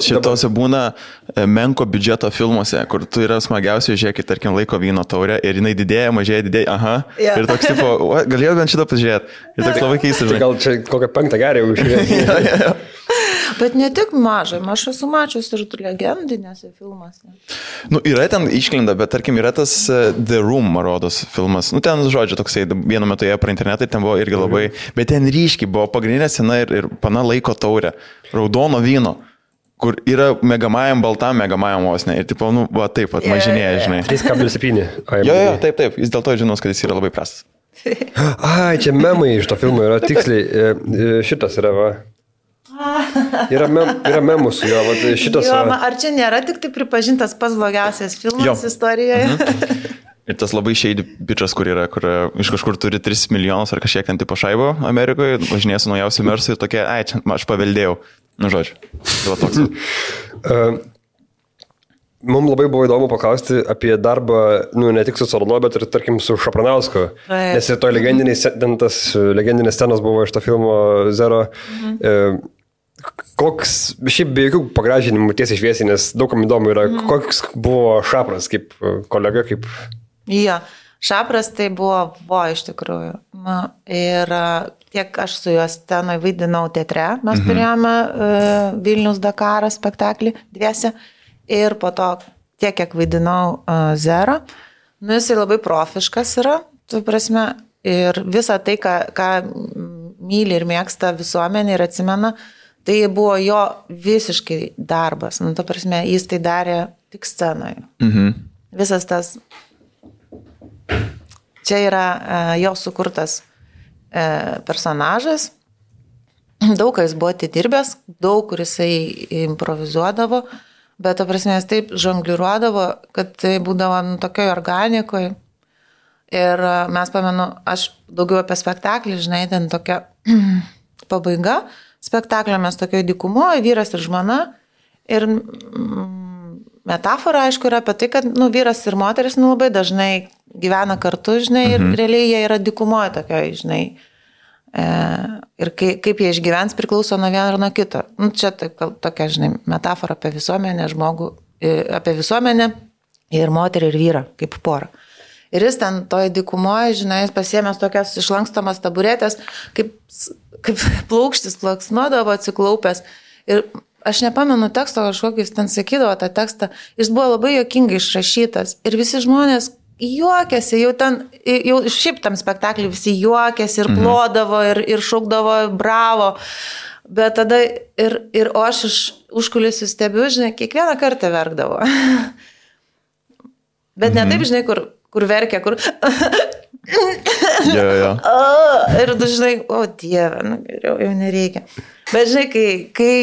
Šitose būna menko biudžeto filmuose, kur tu yra smagiausiai, žiūrėkit, tarkim, laiko vyno taurę ir jinai didėja, mažėja, Ir toks tipo, galėjau bent šitą pažiūrėti. Ir toks labai keistas. Gal čia kokią 5 gerį užžiūrėti. Bet ne tik mažai, aš esu mačius ir legendinėse filmuose. Yra ten išklinda, bet tarkim yra tas The Room, man rodos, filmas. Ten, žodžiu, toksai, vienu metu jie pro internetą, ten buvo irgi labai, bet ten ryškiai buvo pagrindinė scena ir pana laiko taurė, raudono vyno, kur yra megamajam, baltam megamajam osne. Ir tipo, taip pat mažinėja, žinai. 3,7. Taip, jis dėl to žinos, kad jis yra labai prastas. Čia memai iš to filmo yra tiksliai, šitas yra, va. Yra memų su jo, šitas... Ar čia nėra tik tai pripažintas pats blogiausias filmas istorijoje? Ir tas labai shady bičas, kur iš kažkur turi 3 milijonus ar kažkiek ten tipo šaibo Amerikoje, važinėja su naujausiu Mersu ir tokie, čia aš paveldėjau. Žodžiu, tai toks. Mums labai buvo įdomu paklausti apie darbą, ne tik su Colano, bet ir, tarkim, su Šapranausku. Nes ir to legendinės scenos buvo iš to filmo Zero. Koks, šiaip be jokių pagražinimų tiesiai šviesiai, nes daugam įdomu yra, koks buvo Šapras kaip kolega, kaip... Šapras tai buvo iš tikrųjų. Ir tiek aš su juo scenoje vaidinau teatre, mes turėjome Vilnius Dakaras spektaklį dviese. Ir po to tiek, kiek vaidinau Zero, jisai labai profiškas yra, tu prasme, ir visą tai, ką myli ir mėgsta visuomenė ir atsimena, tai buvo jo visiškai darbas. Tu prasme, jis tai darė tik scenoje. Visas tas, čia yra jo sukurtas personažas, daug ką jis buvo atidirbęs, daug kur jisai improvizuodavo, bet, ta prasme, jis taip žongliruodavo, kad tai būdavo tokioj organikoje. Ir mes pamenu, aš daugiau apie spektaklį, žinai, ten tokia pabaiga spektaklio, mes tokioje dykumoje, vyras ir žmona. Ir metafora, aišku, yra apie tai, kad vyras ir moteris labai dažnai gyvena kartu, žinai, ir realiai jie yra dykumoje tokioje, žinai. Ir kaip jie išgyvens priklauso nuo vieno ir nuo kito. Čia tokia, žinai, metafora apie visuomenę, apie visuomenę ir moterį ir vyrą, kaip porą. Ir jis ten toje dykumoje, žinai, jis pasiėmęs tokias išlankstomas taburetės, kaip plaukštis plaksnuodavo atsiklaupęs. Ir aš nepamenu teksto kažkokį, jis ten sakydavo tą tekstą, jis buvo labai juokingai išrašytas. Ir visi žmonės juokėsi, jau šiaip tam spektaklį visi juokėsi ir plodavo ir šaukdavo bravo. Bet tada o aš iš užkulisių stebiu, žinai, kiekvieną kartą verkdavo. Bet ne taip, žinai, kur verkia, kur... Ir tu žinai, o Dieve, jau nereikia. Bet žinai, kai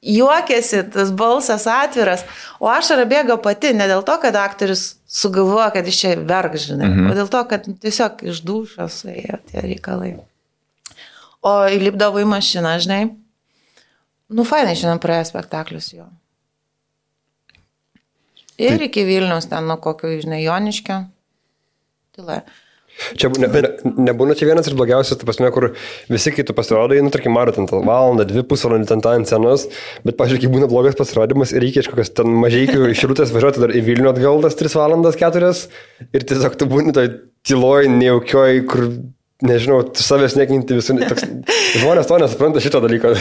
juokėsi, tas balsas atviras, o ašara bėga pati, ne dėl to, kad aktorius sugalvoja, kad iš čia verk, žinai, o dėl to, kad tiesiog iš dūšios ėjo tie reikalai. O įlipdavo į mašiną, žinai, fainai šiandien praėjo spektaklius jo. Ir iki Vilniaus ten, kokio, žinai, Joniškio. Tyla. Čia nebūna čia vienas ir blogiausias, ta prasme, kur visi kitų pasirodai, tarkim, maro ten valandą, 2 pusvalandį ten tą ant scenos, bet, pažiūrėk, būna blogas pasirodymas ir reikia iš kokios ten mažeikių iš Rūtės važiuoti dar į Vilnių atgal tas 3 valandas 4 ir tiesiog tu būni toj tyloj, nejaukioj, kur nežinau, savęs nekinti visų, žmonės to nesupranta šito dalyko.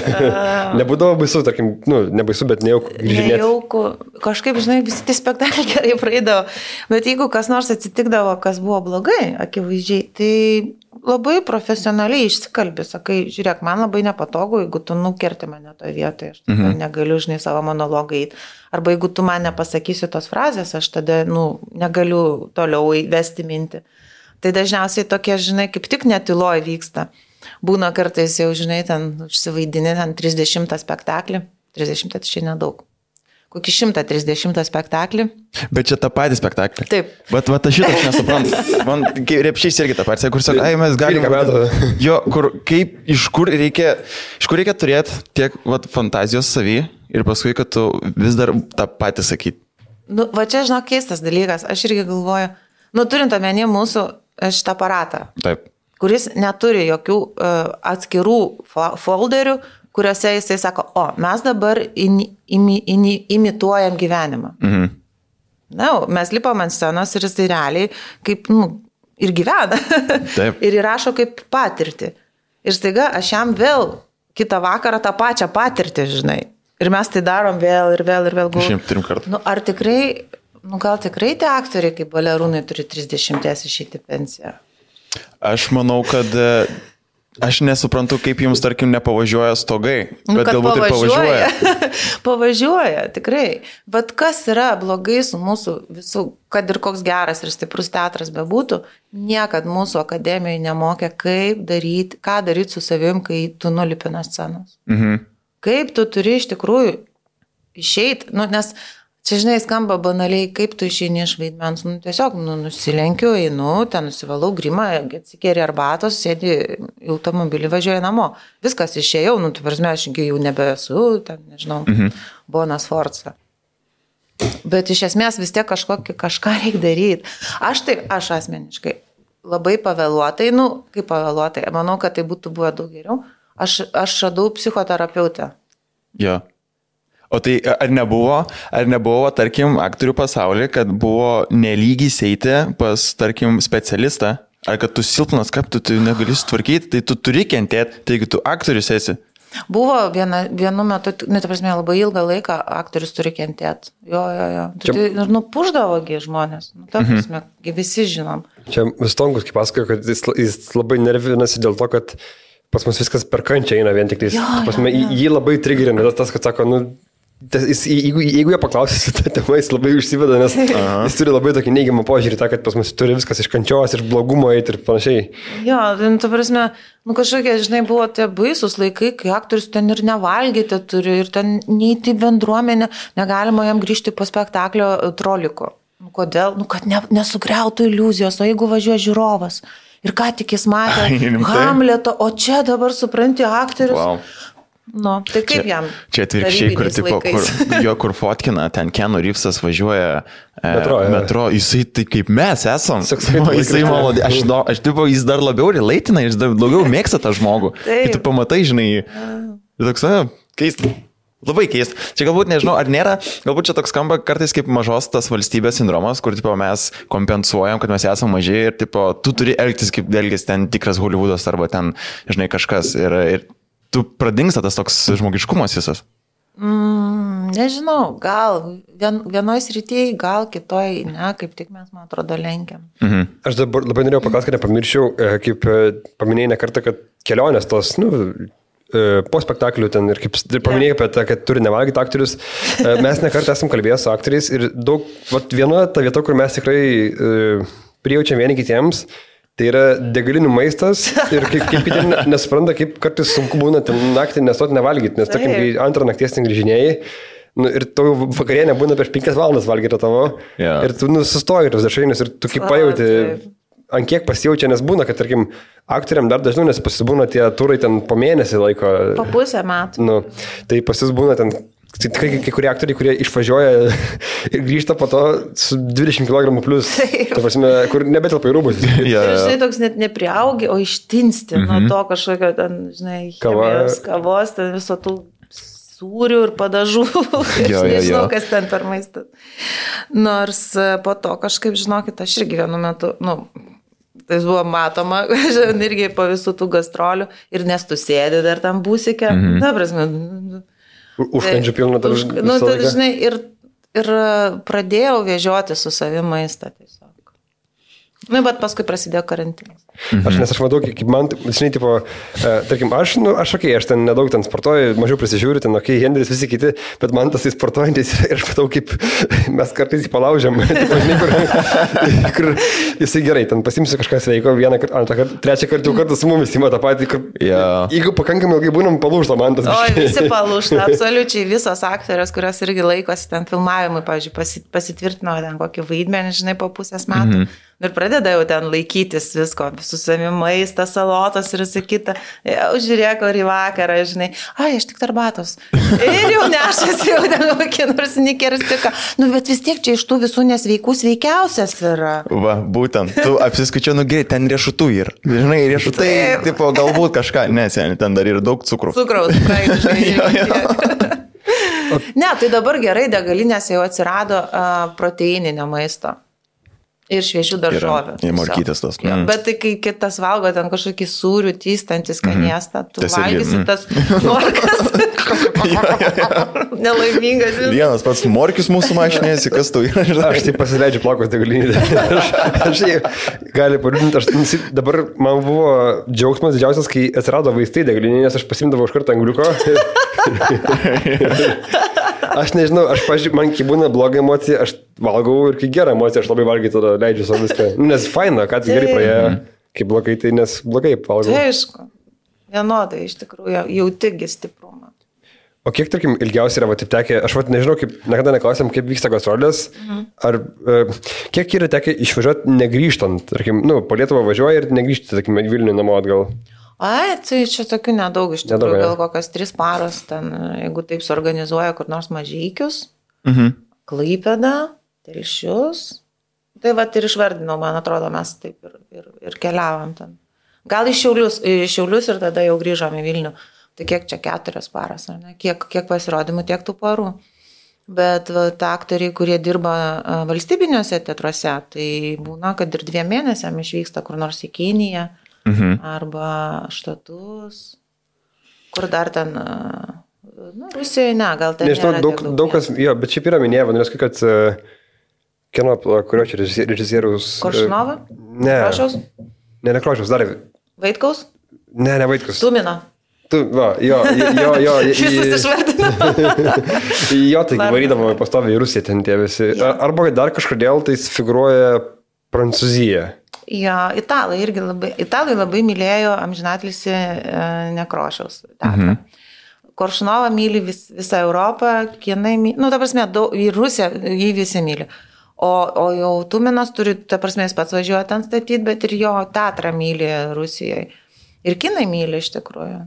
Nebūdavo baisu, tarkim, nebaisu, bet nejauku grįžinėti. Nejauku, kažkaip, žinai, visi tie spektakliai gerai praeidavo, bet jeigu kas nors atsitikdavo, kas buvo blogai, akivaizdžiai, tai labai profesionaliai išsikalbi, sakai, žiūrėk, man labai nepatogu, jeigu tu nukerti mane toje vietoje, aš negaliu, žinai, savo monologą įti. Arba jeigu tu man nepasakysi tos frazės, aš tada, negaliu toliau įvesti mintį. Tai dažniausiai tokie, žinai, kaip tik netiloj vyksta. Būna kartais jau, žinai, ten užsivaidini, ten 30 spektaklį. 30 tai čia nedaug. Kokį 130 spektaklį. Bet čia tą patį spektaklį. Taip. Bet aš šitą aš nesuprantu. Man Repšys irgi tą patį, kur sako, mes galime. Jo, iš kur reikia turėti tiek fantazijos savy ir paskui, kad tu vis dar tą patį sakyti. Va čia, žinok, keistas dalykas. Aš irgi galvoju, turint omeny mūsų šitą aparatą, taip, kuris neturi jokių atskirų folderių, kuriuose jisai sako, mes dabar imituojam gyvenimą. Mes lipam ant scenos ir jisai realiai kaip, ir gyvena. Taip. Ir įrašo kaip patirtį. Ir staiga aš jam vėl kitą vakarą tą pačią patirtį, žinai. Ir mes tai darom vėl ir vėl. 3 kartų. Ar tikrai... gal tikrai tie aktoriai kaip balerūnai turi 30 išeiti pensiją? Aš manau, kad aš nesuprantu, kaip jums, tarkim, nepavažiuoja stogai, bet galbūt ir pavažiuoja. Pavažiuoja, tikrai. Bet kas yra blogai su mūsų visų, kad ir koks geras ir stiprus teatras bebūtų, niekad mūsų akademijoje nemokė, ką daryti su savim, kai tu nulipi nuo scenos. Kaip tu turi iš tikrųjų išeiti, nes čia, žinai, skamba banaliai, kaip tu išeini iš vaidmens. Tiesiog nusilenkiu, einu, ten nusivalau grimą, atsikėri arbatos, sėdi į automobilį, važiuoju namo. Viskas išėjau, tu prasme, aš jau nebesu, ten, nežinau, Bona Sforza. Bet iš esmės vis tiek kažką reikia daryti. Aš asmeniškai labai pavėluotai, kaip pavėluotai, manau, kad tai būtų buvę daug geriau. Aš radau psichoterapeutę. Jo. O tai ar nebuvo, tarkim, aktorių pasaulyje, kad buvo nelygis eiti pas, tarkim, specialistą, ar kad tu silpnas, kaip tu negali sutvarkyti, tai tu turi kentėti, taigi tu aktorius esi? Buvo vienu metu, prasme, labai ilgą laiką aktorius turi kentėti. Jo. Tai puždavogi žmonės. Ta prasme, visi žinom. Čia Stonkus, kaip pasakojo, kad jis labai nervinasi dėl to, kad pas mus viskas per kančią eina vien tik tais. Jį labai trigerina tas, kad sako, jeigu jie paklausys tą temą, jis labai užsiveda, nes jis turi labai tokį neigiamą požiūrį, kad pas mus turi viskas iš kančios, iš blogumo eiti ir panašiai. Jo, ta prasme, kažkokie, žinai, buvo tie baisus laikai, kai aktorius ten ir nevalgyti turi, ir ten neįti bendruomenę, negalima jam grįžti po spektaklio troliko. Kodėl? Kad nesugriautų iliuzijos, o jeigu važiuoja žiūrovas ir ką tik jis matė Hamleto, o čia dabar supranti aktorius. Wow. Tai kaip jam? Čia atvirkščiai, kur fotkina, ten Keanu Reevesas važiuoja metro, jisai tai kaip mes esam. Jis dar labiau relaitina, jis dar daugiau mėgsta tą žmogų. Ir tu pamatai, žinai, toks, keista. Labai keista. Čia galbūt, nežinau, ar nėra, galbūt čia toks skamba kartais kaip mažos tas valstybės sindromas, kur mes kompensuojam, kad mes esame maži ir tu turi elgtis kaip elgtis ten tikras Hollywoodas arba ten, žinai, kažkas ir tu pradingsta tas toks žmogiškumas visas? Nežinau, gal vienoj srityje, gal kitoj, kaip tik mes, man atrodo, lenkiam. Aš dabar labai norėjau paklausti, kad nepamirščiau, kaip paminėjai ne kartą, kad kelionės tos, po spektaklių ten ir kaip paminėjai apie tą, kad turi nevalgyti aktorius, mes ne kartą esam kalbėję su aktoriais ir daug, viena ta vieta, kur mes tikrai prijaučiam vieni kitiems, tai yra degalinių maistas ir kaip kiti nesupranta, kaip kartais sunku būna ten naktį nestoti nevalgyti, nes tarkim, kai antrą nakties ten grįžinėjai, ir tavo vakarienė būna prieš 5 valandas valgyti tavo ir tu sustoji ir dažnai, ir tu kaip pajauti, ant kiek pasijaučia, nes būna, kad tarkim, aktoriam dar dažniau, nes pasibūna tie turai ten po mėnesį laiko. Po pusę metų. Tai pasibūna ten kai kurie aktoriai, kurie išvažiuoja ir grįžta po to su 20 kg plus, ta prasme, kur nebetelpa į rūbus. Ir žinai, toks net nepriaugi, o ištinsti nuo to kažkokio ten, žinai, chemijos, kavos, ten viso tų sūrių ir padažų. Aš nežinau, kas ten per maistas. Nors po to kažkaip, žinokit, aš irgi vienu metu, Tai buvo matoma, irgi po visų tų gastrolių ir nes tu sėdi dar tam būsike, ta prasme. Užkandžių pilna dar. Tai žinai, ir pradėjau vežioti su savimi maistą tiesiog. Bet paskui prasidėjo karantinas. Aš matau, kaip man, žinai, tipo, tarkim, aš ten nedaug ten sportuoju, mažiau prisižiūriu, ten, Henris, visi kiti, bet man tas sportuojantis ir aš matau, kaip mes kartais jį palaužiam, tipo, žinai, kur jisai gerai, ten pasimsiu kažką sveiko, vieną kartą, antrą kartą, trečią kartą su mumis įma tą patį, kur, jeigu pakankamai ilgai būnam, palūžta man tas. O, visi palūžta, absoliučiai visos aktorės, kurios irgi laikosi ten filmavimui, pavyzdžiui, pasitvirtino ten kokį vaidmenį, žinai, po pusės metų. Ir pradeda jau ten laikytis visko, su savimi maistą, salotas ir visą kitą. Jau žiūrėk, ar į vakarą, žinai, aš tik tarbatos. Ir jau nešasi, jau ten kokie nors nikerstiką. Bet vis tiek čia iš tų visų nesveikų sveikiausias yra. Va, būtent, tu apsiskaičiau, gerai, ten riešutų yra. Žinai, riešutai, tipo, galbūt kažką, neseniai, ten dar yra daug cukrų. Cukraus, praktiškai. Ne, tai dabar gerai, degalinėse jau atsirado proteininio maisto. Ir šviežių daržovių. Ir morkytės tas. Bet tai kai kitas valgo ten kažkokį sūrių, tystantį skanėstą, tu valgysi tas morkas. Nelaimingas. Vienas pats morkis mūsų mašinėsi, kas tu yra. Aš tai pasileidžiu plakos degalinį. Aš gali paliūdinti, dabar man buvo džiaugsmas didžiausias, kai atsirado vaistai degalinį, nes aš pasimdavau iš karto angliuko. Aš nežinau, man kai būna bloga emocija, aš valgau ir kai gera emocija, aš labai valgiai tada leidžiu savo viską. Nes faina, kad gerai praėjo, kai blogai, tai nes blogai valgau. Tai aišku, vienodai iš tikrųjų, jautigi stiprumą. O kiek, tarkim, ilgiausiai yra, taip tekė, aš nežinau, niekada neklausiam, kaip vyksta gastrolės, ar kiek yra tekę išvažiuoti negrįžtant, tarkim, po Lietuvą važiuoji ir negrįžti, tarkim, Vilnių namo atgal. Tai čia tokių nedaug iš tikrųjų, gal kokios 3 paros, ten, jeigu taip suorganizuoja kur nors Mažeikius, Klaipėdą, Telšius, tai va ir išvardinau, man atrodo, mes taip ir keliavom ten. Gal iš Šiaulius ir tada jau grįžom į Vilnių, tai kiek čia 4 paras, ar ne? Kiek pasirodymų, tiek tų parų. Bet ta aktoriai, kurie dirba valstybiniuose teatruose, tai būna, kad ir 2 mėnesiam išvyksta kur nors į Kiniją, arba Štatus, kur dar ten, Rusijoje, gal ten nežinau, daug kas, bet šiaip yra minėję, vadinasi, kad kino, kurio čia režisieriaus... Koršunova? Ne. Krošiaus? Ne Krošiaus, dar... Vaitkaus? Ne Vaitkaus. Tumino. Jo. Visus išvardino. Jo, tai varydavo pastoviai į Rusiją ten tie visi. Arba dar kažkodėl tai figūruoja Prancūzija. Jo, italai labai mylėjo amžinatilsį Nekrošiaus teatrą. Koršunovą myli visą Europą, kinai myli, ta prasme, į Rusiją jį visi myli. O jau Tuminas turi, ta prasme, jis pats važiuoja ten statyti, bet ir jo teatrą myli Rusijoje. Ir kinai myli iš tikrųjų.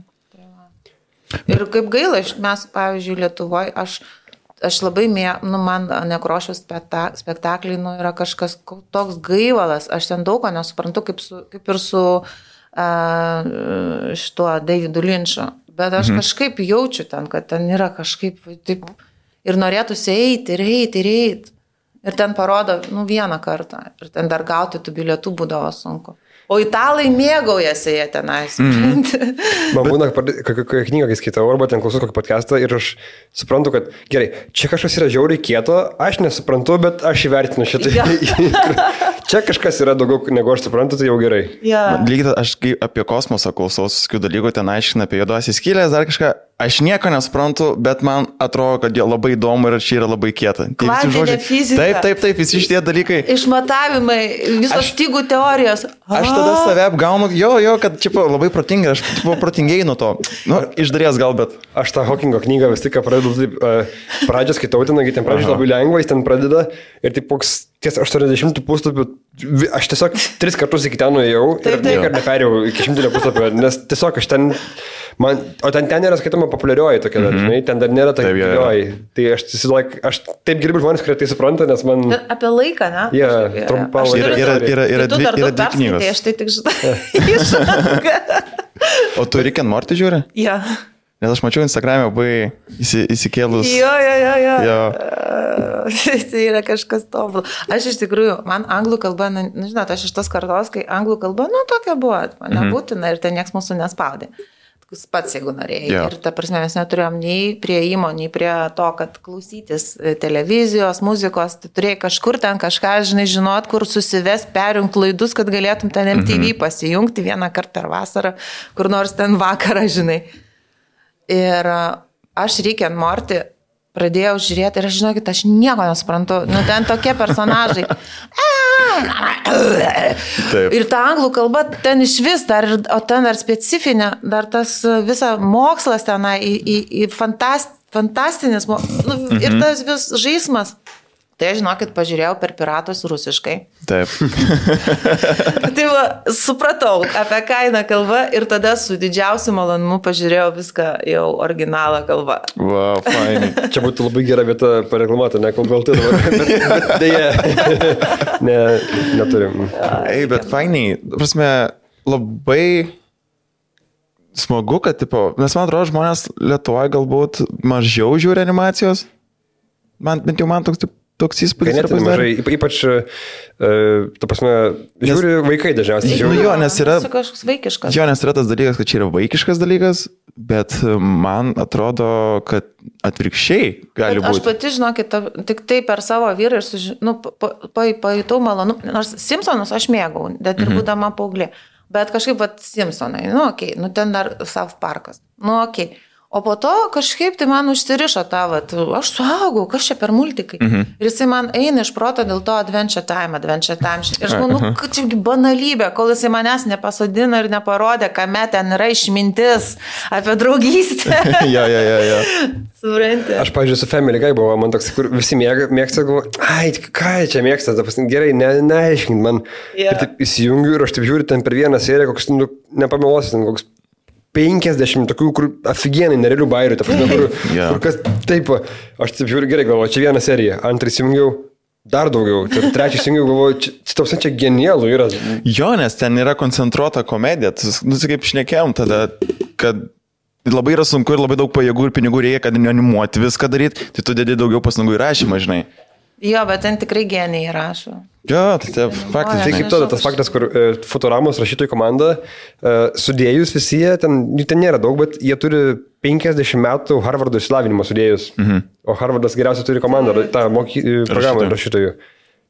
Ir kaip gaila, mes, pavyzdžiui, Lietuvoje, aš labai man Nekrošiaus spektakliai, yra kažkas toks gaivalas, aš ten daug ko nesuprantu, kaip ir su šituo Davidu Linču, bet aš kažkaip jaučiu ten, kad ten yra kažkaip taip, ir norėtųsi eiti. Ir ten parodo, vieną kartą, ir ten dar gauti tų bilietų būdavo sunku. O italai mėgaujasi jie tenais. Man būna, kokią knygą, kai skaitau, arba ten klausau kokį podcastą ir aš suprantu, kad gerai, čia kažkas yra žiauriai kieto, aš nesuprantu, bet aš įvertinu šitą. Čia kažkas yra daugiau, negu aš suprantu, tai jau gerai. Lygiai, aš kai apie kosmosą klausau, tokių dalykų, ten aiškina apie juodosios skylės, dar kažką. Aš nieko nesuprantu, bet man atrodo, kad jie labai įdomu ir čia yra labai kieta. Kvantinė fizika. Taip, visi šitie dalykai. Išmatavimai, visos stygų teorijos. Aš tada save apgaunu, kad čia labai protingai, aš protingiai nuo to. Iš dalies gal, bet. Aš tą Hawkingo knygą vis tik pradedu taip, pradžią skaitau, ten pradžią labai lengva, jis ten pradeda ir taip koks ties 80 puslapių, aš tiesiog 3 kartus iki ten nuėjau ir niekada neperėjau iki 100 puslapio, nes tiesiog aš ten, o ten nėra skaitoma populiarioji tokia, žinai, ten dar nėra tokia populiarioji. Tai aš taip gerbiu žmonės, kurie tai supranta, nes man... Apie laiką, ne? Trumpą laiką. Yra tu dar 2 knygos. Tai aš tai tik žinau. O tu Rick and Morty žiūri? Jo. Nes aš mačiau Instagram'e labai įsikėlus. Jo. Tai yra kažkas tobulą. Aš iš tikrųjų, man anglų kalba, žinot, aš iš tos kartos, kai anglų kalba, tokia buvo, man nebūtina ir ten nieks mūsų nespaudė. Pats, jeigu norėjai. Yeah. Ir ta prasme, mes neturėjom nei prieimo, nei prie to, kad klausytis televizijos, muzikos, tai turėjai kažkur ten kažką, žinot, kur susivest, perjungt laidus, kad galėtum ten MTV pasijungti vieną kartą per vasarą, kur nors ten vakarą, žinai. Ir aš Rick and Morty pradėjau žiūrėti ir aš žinokit, aš nieko nesuprantu. Ten tokie personažai. Taip. Ir ta anglų kalba ten iš vis, o ten dar specifinė, dar tas visa mokslas tenai, fantastinis, ir tas vis žaismas. Tai aš, žinokit, pažiūrėjau per piratus rusiškai. Taip. Tai va, supratau, apie ką eina kalba ir tada su didžiausiu malonumu pažiūrėjau viską jau originalą kalbą. Wow, fainai. Čia būtų labai gera vieta pareklamuoti, ne kol galti dabar, bet dėja, neturim. Bet fainai, prasme, labai smagu, kad, nes man atrodo, žmonės Lietuvoje galbūt mažiau žiūri animacijos. Bent jau man toks įspūdis. Ganėtinai mažai, ypač, ta prasme, žiūri vaikai dažniausiai. Jo, nes yra kažkoks vaikiškas. Jo, nes yra tas dalykas, kad čia yra vaikiškas dalykas, bet man atrodo, kad atvirkščiai gali būti. Aš pati, žinokit, tik tai per savo vyrą ir pajutau malonu, nors Simpsonus aš mėgau, bet ir būdama paauglė. Bet kažkaip, Simpsonai, ten dar South Parkas, O po to kažkaip tai man užsirišo tą, aš suaugau, kas čia per multikai. Ir jisai man eina iš proto dėl to Adventure Time. Ir aš manau, kad čia banalybė, kol jisai manęs nepasodino ir neparodė, kame ten yra išmintis apie draugystę. Jo. Supranti. Aš, pavyzdžiui, su Family Guy buvo, man toks, kur visi mėgsta, galvoju, ką čia mėgsta, gerai, neaiškint man. Ir taip įsijungiu ir aš taip žiūriu ten per vieną seriją, koks, nepameluosiu, koks 50 tokių, kur aфиgenai nerealių bairių, kur kas taip, aš taip žiūriu, gerai, galvoju, čia viena serija, antrą įsijungiau, dar daugiau, trečią įsijungiau, galvoju, čia genialų yra. Jo, nes ten yra koncentruota komedija, kaip šnekėjom tada, kad labai yra sunku ir labai daug pajėgų ir pinigų reikia, kad animuoti viską daryti, tai tu dedi daugiau pastangų įrašymą, žinai. Jo, bet ten tikrai genijai rašo. Jo, tai faktas. Tai kaip tada tas faktas, kur Futuramos rašytojų komanda, sudėjus visi jie, ten nėra daug, bet jie turi 50 metų Harvardo išsilavinimo sudėjus. O Harvardas geriausiai turi komandą, tą programą rašytojų.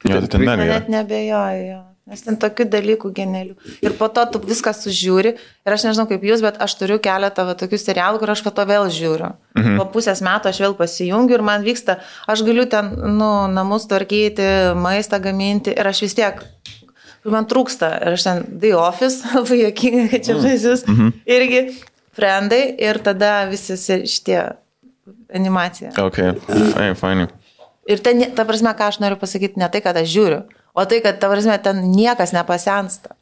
Jo, tai ten mega. Net nebejoju. Nes ten tokių dalykų genialių. Ir po to tu viską sužiūri. Ir aš nežinau kaip jūs, bet aš turiu keletą tokių serialų, kur aš po to vėl žiūriu. Po pusės metų aš vėl pasijungiu ir man vyksta, aš galiu ten, namus tvarkyti, maistą gaminti ir aš vis tiek, man trūksta. Ir aš ten The Office, labai juokinga, kad čia žaisius. Irgi Friendai ir tada visi šitie animacija. Ok, fainai. Ir ten, ta prasme, ką aš noriu pasakyti, ne tai, kad aš žiūriu, o tai, kad, ta prasme, ten niekas nepasensta.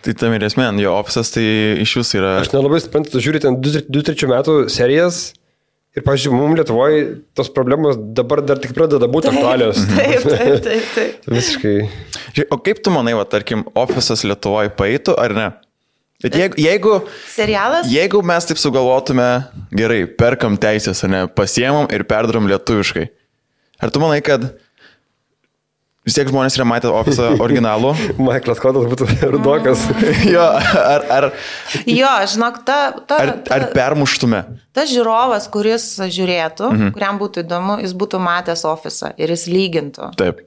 Tai tam ir esmė, jo Office'as tai iš jūsų yra... Aš nelabai suprantu, tu žiūri ten 2-3 metų serijas ir, pavyzdžiui, mums Lietuvoje tos problemos dabar dar tik pradeda būti aktualios. Taip. Visiškai. O kaip tu manai, tarkim, Office'as Lietuvoje paeitų, ar ne? Bet jeigu... Serialas? Jeigu mes taip sugalvotume, gerai, perkam teisės, ne, pasiemam ir perdarom lietuviškai. Ar tu manai, kad vis tiek žmonės yra matę Office'ą originalų? Michaelas Scottas būtų rudokas. Jo, ar... Jo, žinok, ar permuštume? Tas žiūrovas, kuris žiūrėtų, kuriam būtų įdomu, jis būtų matęs Office'ą ir jis lygintų. Taip.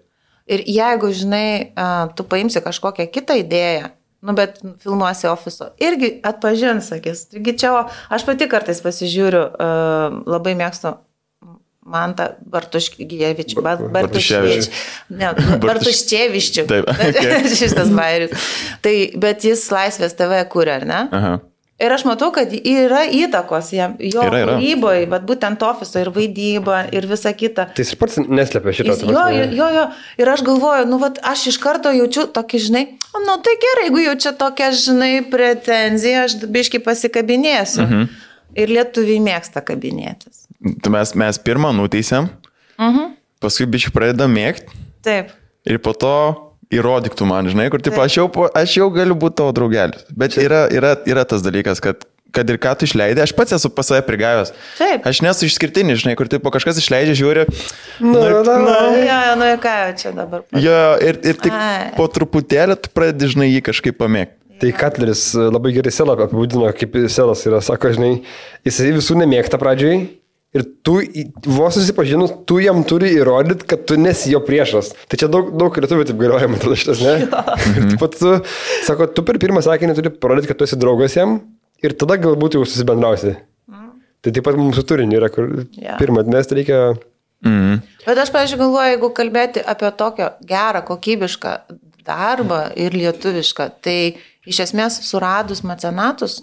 Ir jeigu, žinai, tu paimsi kažkokią kitą idėją, bet filmuosi Office'o, irgi atpažins, sakys. Taigi čia, aš pati kartais pasižiūriu, labai mėgstu Mantą Bartuškevičių. Bartuškevičių. Taip. Šitas bairis. Tai, bet jis Laisvės TV kuria, ar ne? Aha. Ir aš matau, kad yra įtakos jam, jo kūryboje, bet būtent Office'o ir vaidyba ir visa kita. Tai jis pats neslėpia šitą. Jo. Ir aš galvoju, aš iš karto jaučiu tokį, žinai, tai gerai, jeigu jaučia tokią, žinai, pretenziją, aš biškai pasikabinėsiu. Ir lietuviai mėgsta kabinėtis. Mes pirmą nuteisėm, paskui biškai pradedam mėgti. Taip. Ir po to įrodyktų man, žinai, kur taip, aš jau galiu būti tavo draugelis. Bet yra tas dalykas, kad kad ir ką tu išleidai, aš pats esu pas save prigavęs. Taip. Aš nesu išskirtinis, žinai, kur tipo kažkas išleidžia, žiūri. Ir ką čia dabar? Jo, ir tik po truputėlį tu pradedi, žinai, jį kažkaip pamėgti. Tai Katleris labai gerai Selą apibūdino, kaip Selas yra, sako, žinai, jisai visų nemėgta pradžiai ir tu, vos susipažinus, tu jam turi įrodyti, kad tu nesi jo priešas. Tai čia daug lietuvių taip galvoja, man atrodo šitas, ne? Ir taip pat tu, sako, tu per pirmą sakinį turi parodyti, kad tu esi draugas jam ir tada galbūt jau susibendrausi. Tai taip pat mums su turiniu yra, kur pirmą atmesti reikia... Bet aš, pavyzdžiui, galvoju, jeigu kalbėti apie tokio gerą, kokybišką darbą ir lietuvišką, tai iš esmės suradus mecenatus,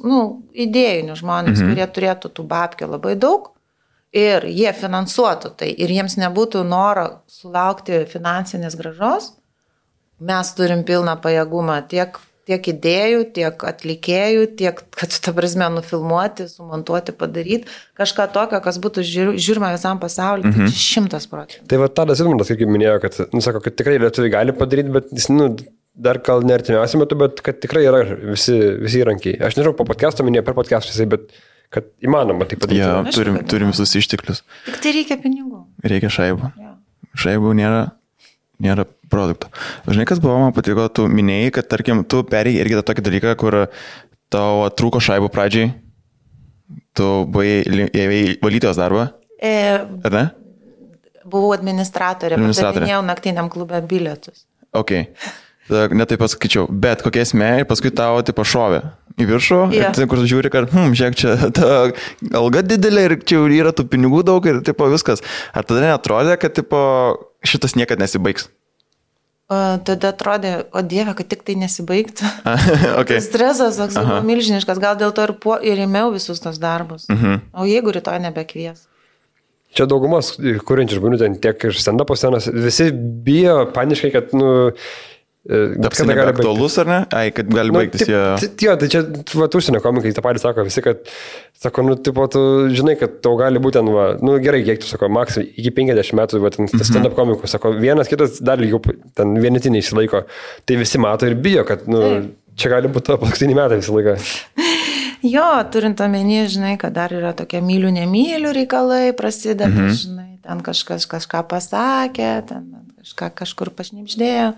idėjinius žmonės, kurie turėtų tų babkių labai daug ir jie finansuotų tai ir jiems nebūtų noro sulaukti finansinės grąžos, mes turim pilną pajėgumą tiek idėjų, tiek atlikėjų, tiek, kad ta prasme nufilmuoti, sumontuoti, padaryti kažką tokio, kas būtų žiūrima visam pasauliu, tai 100%. Tai va Tadas Ilmantas, kaip minėjo, kad, sako, kad tikrai lietuviai gali padaryti, bet jis, dar gal ne artimiausiu metu, bet kad tikrai yra visi įrankiai. Aš nežinau, po podcast'o minėjau, per podcast'ą, bet kad įmanoma tai padaryti. Ja, turim visus išteklius. Tik tai reikia pinigų. Reikia šaibų. Šaibų nėra produkto. Žinai, kas buvo, man patiko, tu minėjai, kad, tarkim, tu perėjai irgi tą tokį dalyką, kur tau trūko šaibų pradžiai, tu buvai valytojos darbą, ar ne? Buvau administratorė, padavinėjau naktiniam klube bilietus. Ok. Netaip pasakyčiau, bet kokia esmė ir paskui tavo tipo šovė į viršų, ir kur žiūri, kad, žiūrėk, čia ta alga didelė ir čia yra tų pinigų daug ir tipo viskas. Ar tada neatrodė, kad tipo šitas niekad nesibaigs? Tada atrodė, o Dieve, kad tik tai nesibaigtų. Okay. Stresas toks buvo milžiniškas, gal dėl to ir ėmiau visus tos darbus. O jeigu rytoj nebekvies? Čia daugumas kuriančių žmonių, ten tiek iš stand-upo scenos, visi bijo paniškai, kad, Taps nebeaktualus, ar ne? Ai, kad gali baigtis jie... Jo, tai čia, užsienio komikai, tą patį sako visi, kad, sako, tipo, tu žinai, kad tau gali būti, gerai, kiek tu, sako, maks, iki 50 metų, stand-up komikų, sako, vienas kitas dar lygiau, ten vienetiniai išsilaiko, tai visi mato ir bijo, kad, čia gali būti paskutiniai metai visą laiką. Jo, turint omeny, žinai, kad dar yra tokie mylių, nemylių reikalai prasideda, žinai, ten kažkas kažką pasakė, ten kažkur pašnipždėjo.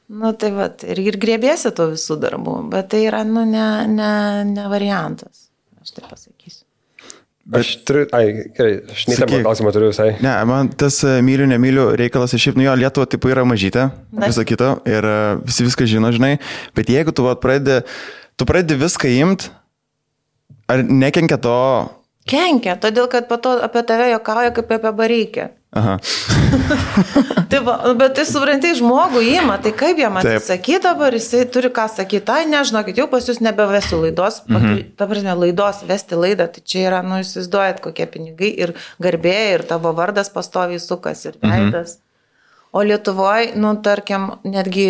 Tai va, ir grėbėsi to visų darbų, bet tai yra, ne variantas, aš taip pasakysiu. Aš turiu, gerai, aš neįtamą klausimą turiu visai. Ne, man tas mylių, nemylių reikalas, šiaip, Lietuva tipo yra mažytė, visą kitą, ir visi viską žino, žinai, bet jeigu tu pradedi viską imt, ar nekenkia to? Kenkia, todėl, kad po to apie tave juokauja kaip apie bareikę. Aha. Tai va, bet tai suprantai, žmogų įima, tai kaip jam atsisakyti dabar, jisai turi ką sakyti, nežinokit, jau pas jūs nebevesiu laidos, ta prasme, laidos, vesti laidą, tai čia yra, įsivaizduojat, kokie pinigai ir garbė, ir tavo vardas pastoviai sukas, ir veidas. O Lietuvoje, tarkim, netgi,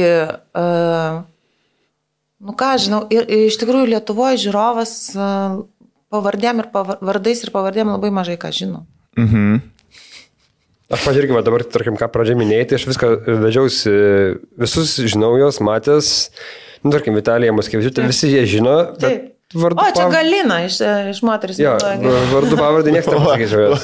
ką žinau, ir iš tikrųjų Lietuvoje žiūrovas pavardėm ir vardais ir pavardėm labai mažai ką žino. Aš pažiūrėkime, dabar, tarkim, ką pradžiai minėjai, tai aš viską vedžiausi, visus žinau jos, matęs, tarkim, Vitalija Moskevičiūtė, visi jie žino, bet vardu čia Galina iš moteris. Jo, vardu pavardį niekas nepasakyčiau jos.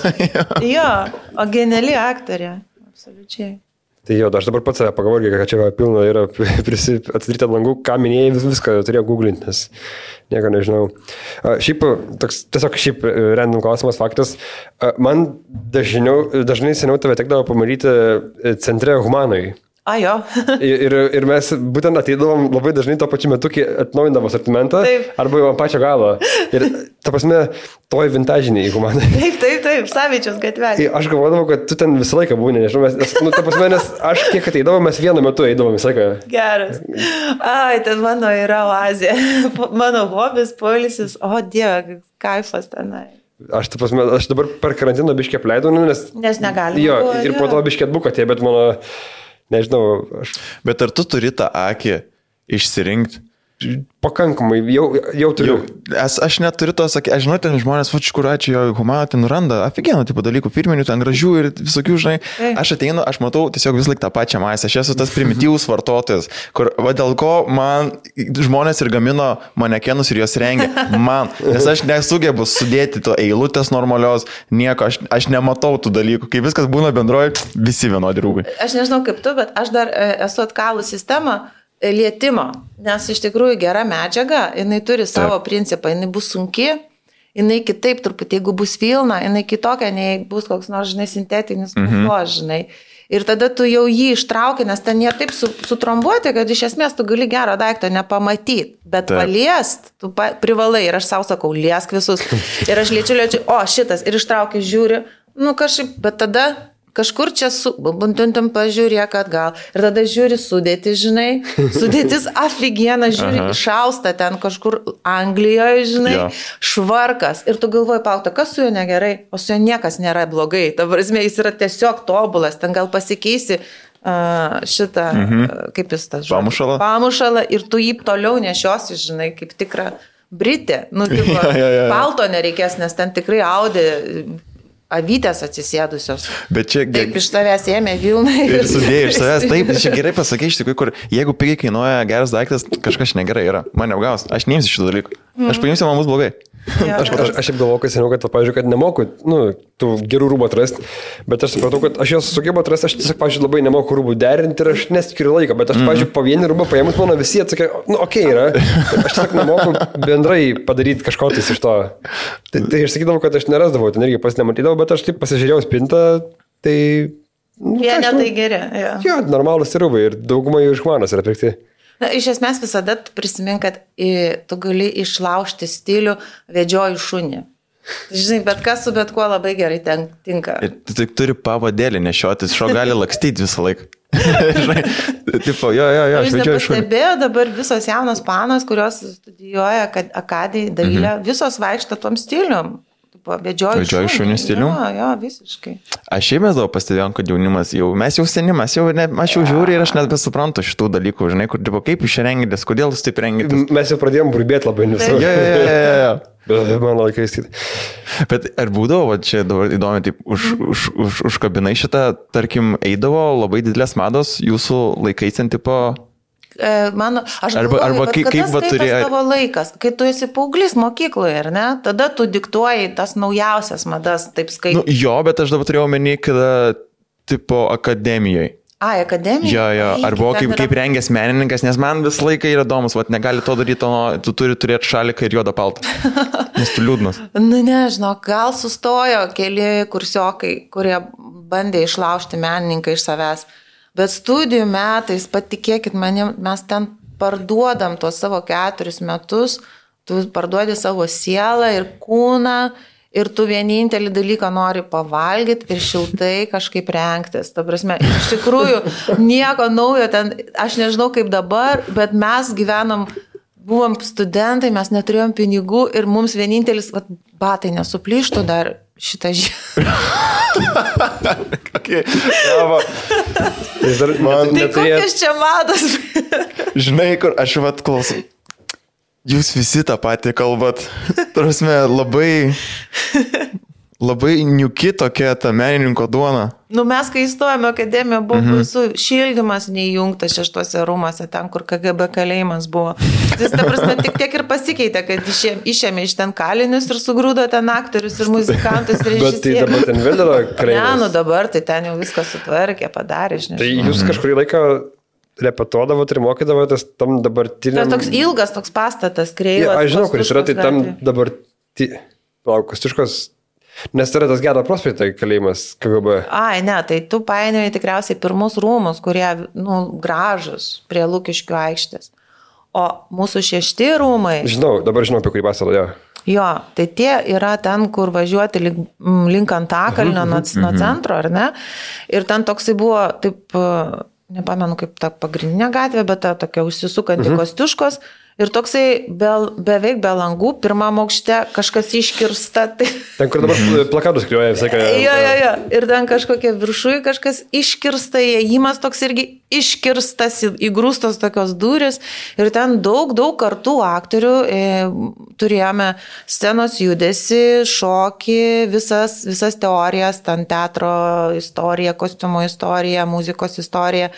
Jo, o geniali aktorė, absoliučiai. Tai jo, aš dabar pats save pagalvoju, kad čia pilna yra atsidaryta langų, ką minėjai, viską turėjau googlinti, nes nieko nežinau. Šiaip random klausimas, faktas, man dažnai seniau tave tekdavo pamatyti centre Humanoj. Jo. ir mes būtent ateidavom labai dažnai to pačiu metu, kai atnaujindavo asortimentą, arba jau ant pačio galo. Ir ta prasme, toj vintažiniai Humanoj. Taip, Savičiaus gatvė. Aš galvodavau, kad tu ten visą laiką būni, nežinau, ta prasme, nes aš kiek ateidavom, mes vienu metu eidavom visą laiką. Geras. Ten mano yra oazė. Mano hobis, poilsis, o Dieve, kaifas tenai. Aš dabar per karantiną biškį apleidau, nes negalima. Jo, ir po to biškį atbuko tie, bet mano, nežinau, Bet ar tu turi tą akį išsirinkti, pakankamai, jau turiu. Aš neturiu to sakyti, aš žinau, ten žmonės, kur ačiū jo humano, ten randa aфиgenų tipo dalykų, firminių, ten gražių ir visokių, žinai. Aš ateinu, aš matau tiesiog vis laik tą pačią masę. Aš esu tas primityvus vartotojas, kur, dėl ko man žmonės ir gamino manekenus ir juos rengia. Man, nes aš nesugebu sudėti to eilutės normalios, nieko, aš nematau tų dalykų. Kai viskas būna bendroji, visi vienodi rūbai. Aš nežinau kaip tu, bet aš dar esu atkalus sistemą lietimo, nes iš tikrųjų gera medžiaga, jinai turi savo principą, jinai bus sunki, jinai kitaip truputį, jeigu bus vilna, jinai kitokia, nei bus koks nors, žinai, sintetinis puplos, žinai. Ir tada tu jau jį ištrauki, nes ten jie taip sutrombuoti, kad iš esmės tu gali gero daikto nepamatyti, bet paliest, tu privalai ir aš savo sakau, liesk visus. Ir aš liečiu, o šitas, ir ištraukiu, žiūri, nu kažkaip, bet tada kažkur čia buntuntum pažiūrėk atgal. Ir tada žiūri sudėti, žinai. Sudėtis aфиgena, žiūri, šausta ten kažkur Anglijoje, žinai, švarkas. Ir tu galvoji, paukta, kas su juo negerai? O su juo niekas nėra blogai. Ta prasme, jis yra tiesiog tobulas. Ten gal pasikeisi šitą, kaip jis tas žodis? Pamušalą. Ir tu jį toliau nešiosi, žinai, kaip tikra Britė. Nu, tipo, palto nereikės, nes ten tikrai audė avytės atsisėdusios. Bet čia... Taip iš tavęs ėmė vilnai. Ir sudėjai iš tavęs. Taip, čia gerai pasakai iš tikrųjų, kur jeigu pigiai kainuoja geras daiktas, kažkas negerai yra. Man neapgaus. Aš neimsiu šitų dalykų. Aš paimsiu, man bus blogai. Aš šiaip galvoju, kad seniau, kad, pavyzdžiui, kad nemoku, tų gerų rūbų atrasti, bet aš supratau, kad aš juos sugebu atrasti, aš tiesiog, pavyzdžiui, labai nemoku rūbų derinti ir aš neskiriu laiką, bet aš, pavyzdžiui, po vienį rūbą paėmus, mano visi atsakė, okei yra, aš tiesiog nemoku bendrai padaryti kažko tais iš to. Tai aš sakydavau, kad aš nerasdavau, ten irgi pas nematydavau, bet aš taip pasižiūrėjau spintą, tai... Jie netai geri. Jo, normalus rūbai ir daugumai iš manos yra pirkti. Na, iš esmės visada prisimink, kad tu gali išlaužti stilių vedžioju šunį. Žinai, bet kas su bet kuo labai gerai tinka. Ir tu tik turi pavadėlį nešiotis, šio gali lakstyti visą laiką. Žinai, tipo, jo, aš vedžioju šunį. Pastebėjau dabar visos jaunos panos, kurios studijuoja akadijai dailę, visos vaikšto tom stilium. Vedžioju šunį stilių? Jo, visiškai. Aš šiaip mes daug pastebėjom, kad jaunimas mes jau senimas, aš jau žiūriu ir aš net besuprantu šitų dalykų, žinai, kur, tipo, kaip jūs rengitės, kodėl jūs taip rengitės. Mes jau pradėjom burbėti labai nesu. Jo. Bet mano laikais. Bet ar būdavo, čia dabar įdomi, taip, užkabinai šitą, tarkim, eidavo labai didelės mados jūsų laikais ant tipo... Aš galvoju, kaip va turėjo tavo laikas, kai tu esi paauglys mokykloje, ar ne? Tada tu diktuoji tas naujausias madas, taip skaitai. Nu, jo, bet aš dabar turėjau omeny, kada tipo akademijoje. Akademijoje? Jo, arba kaip rengęs menininkas, nes man visą laiką yra įdomus, negali to daryti, tu turi turėti šaliką ir juodą paltą, nes tu liūdnas. Nu, nežinau, gal sustojo keli kursiokai, kurie bandė išlaužti menininką iš savęs. Bet studijų metais, patikėkit manim, mes ten parduodam tuos savo 4 metus, tu parduodi savo sielą ir kūną ir tu vienintelį dalyką nori pavalgyti ir šiltai kažkaip rengtis. Ta prasme, iš tikrųjų, nieko naujo ten, aš nežinau kaip dabar, bet mes gyvenom, buvom studentai, mes neturėjom pinigų ir mums vienintelis, batai nesuplyštų dar šitą žiemą. Okay. Tai kokias čia mados? Žinai, kur aš klausau. Jūs visi tą patį kalbat. Prasme, labai niuki tokia ta menininko duona. Nu, mes, kai įstojame akademiją, buvo su šildymas neįjungtas 6 rūmose, ten, kur KGB kalėjimas buvo. Tai, ta prasme, tik tiek ir pasikeitė, kad išėmė iš ten kalinius ir sugrūdo ten aktorius ir muzikantus ir režisierius. Bet tai dabar ten vėl yra kalėjimas. Ne, nu dabar tai ten jau viskas sutvarkė, padarė, žinai. Tai jūs kažkurį laiką repetuodavot ir mokydavotės tam dabartiniam... Tai toks ilgas toks pastatas, kreivas. Aš žinau, kuris yra, tai tam Kostiuškos... Nes yra tas Gedo prospekto kalėjimas KGB. Ne, tai tu painioji tikriausiai pirmus rūmus, kurie, gražus prie Lukiškių aikštės. O mūsų 6 rūmai... Dabar žinau, apie kurį pastatą, jo. Jo, tai tie yra ten, kur važiuoti link Antakalnio nuo centro, ar ne? Ir ten toksai buvo, taip, nepamenu kaip ta pagrindinė gatvė, bet ta tokia užsisukanti Kostiuškos. Ir toksai beveik be langų, pirmam aukšte kažkas iškirsta. Tai... Ten, kur dabar plakatus kliuoja visai ką. Jo. Ir ten kažkokia viršui kažkas iškirsta, įėjimas toks irgi iškirstas, įgrūstos tokios durys. Ir ten daug kartų aktorių turėjome scenos judesi, šokį, visas teorijas, ten teatro istorija, kostiumo istorija, muzikos istorija.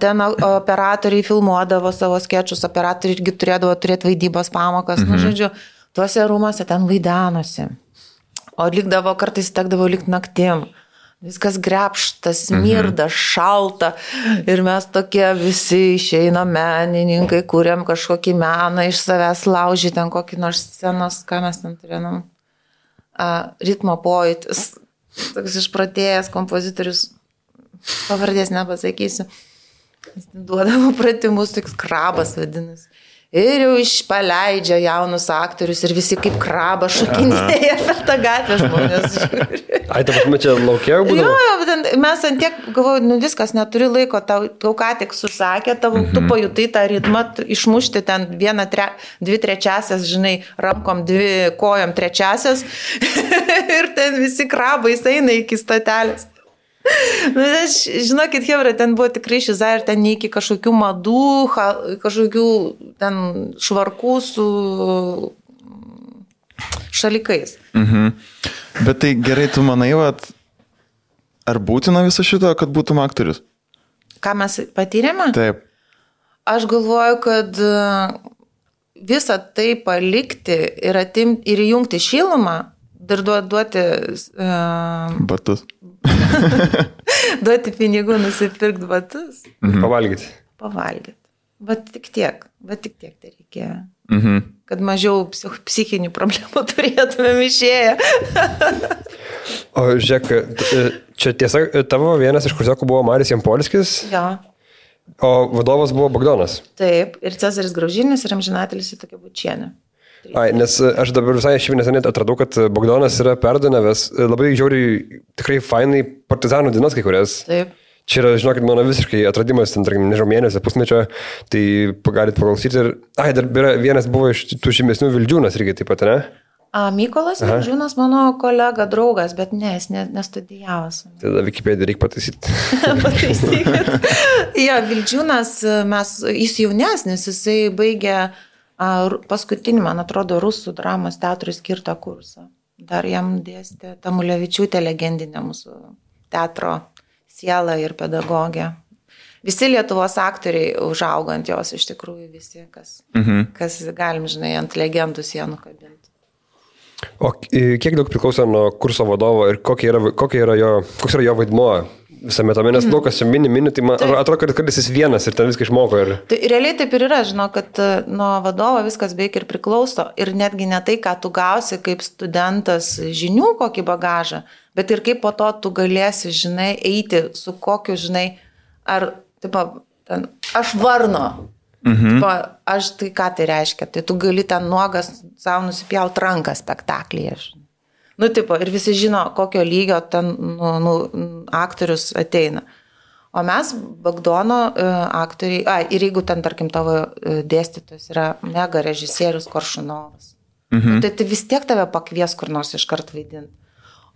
Ten operatoriai filmuodavo savo skečus, operatoriai irgi turėdavo turėti vaidybos pamokas, nu žodžiu, tuose rūmose ten vaidanosi. O likdavo, kartais tekdavo likti naktim. Viskas grepštas, smirda, šalta ir mes tokie visi išeina menininkai, kuriam kažkokį meną iš savęs laužį, ten kokį nors scenos, ką mes ten turėjom. Ritmo pojūtis, toks išpratėjęs kompozitorius, pavardės nepasakysiu. Jis duodavo pratimus, toks krabas vadinasi. Ir jau išpaleidžia jaunus aktorius ir visi kaip krabas šokinėja per tą gatvę žmonės. Ai, ta prasme, čia laukia būdavo? Jo, mes ant tiek, galvoju, viskas, neturi laiko, tau ką tik susakė, tu pajutai tą ritmą, išmušti ten 1/2, žinai, rankom 2 kojom 3 ir ten visi krabai eina iki statelės. Žinokit, Hebra, ten buvo tikrai šiza ir ten iki kažkokių madų, kažkokių ten švarkų su šalikais. Bet tai gerai, tu manai, ar būtina viso šito, kad būtum aktorius? Ką mes patyrėme? Taip. Aš galvoju, kad visą tai palikti ir įjungti šilumą, dar duoti batus. Duoti pinigų, nusipirkti batus. Pavalgyti. Bet tik tiek tai reikėjo. Kad mažiau psichinių problemų turėtumėm išėję. O žiūrėk, čia tiesa, tavo vienas iš kursiokų buvo Marius Jampolskis. Jo. O vadovas buvo Bogdanas. Taip, ir Cezaris Graužinis, ir amžinatelis Tokia Bučienė. Ai, nes aš dabar visai neseniai atradau, kad Bogdanas yra perdonavęs labai žiauriai, tikrai fainai partizanų dienas kai kurias. Taip. Čia yra, žinokit, mano visiškai atradimas, ten, tarkim, nežinau, mėnesio, pusmečio, tai galit paklausyti. Ir, dar vienas buvo iš tų žymesnių Vildžiūnas irgi taip pat, ne? Mykolas Vildžiūnas mano kolega, draugas, bet ne, jis nestudijavęs. Tada Wikipediją reikia pataisyti. Pataisykit. Jo, Vildžiūnas, jis jaunesnis, jisai baigė paskutinį, man atrodo, rusų dramos teatrui skirtą kursą. Dar jam dėstė Tamulevičiūtė, legendinė mūsų teatro siela ir pedagogė. Visi Lietuvos aktoriai užaugo ant jos, iš tikrųjų visi, kas galim, žinai, ant legendų sienų kabinti. O kiek daug priklauso nuo kurso vadovo ir koks yra jo vaidmuo visame tame, nes daug kas čia mini, tai man atrodo, kad jis vienas ir ten viską išmoko. Tai realiai taip ir yra, žinau, kad nuo vadovo viskas beveik ir priklauso ir netgi ne tai, ką tu gausi kaip studentas žinių, kokį bagažą, bet ir kaip po to tu galėsi, žinai, eiti su kokiu, žinai, ar, taip, ten, aš varno. Aš tai ką tai reiškia, tai tu gali ten nuogas savo nusipjaut ranką spektaklyje. Nu, tipo, ir visi žino, kokio lygio ten aktorius ateina. O mes, Bagdono aktoriai, ir jeigu ten, tarkim, tavo dėstytojas yra mega režisierius Koršunovas, tai vis tiek tave pakvies kur nors iškart vaidinti.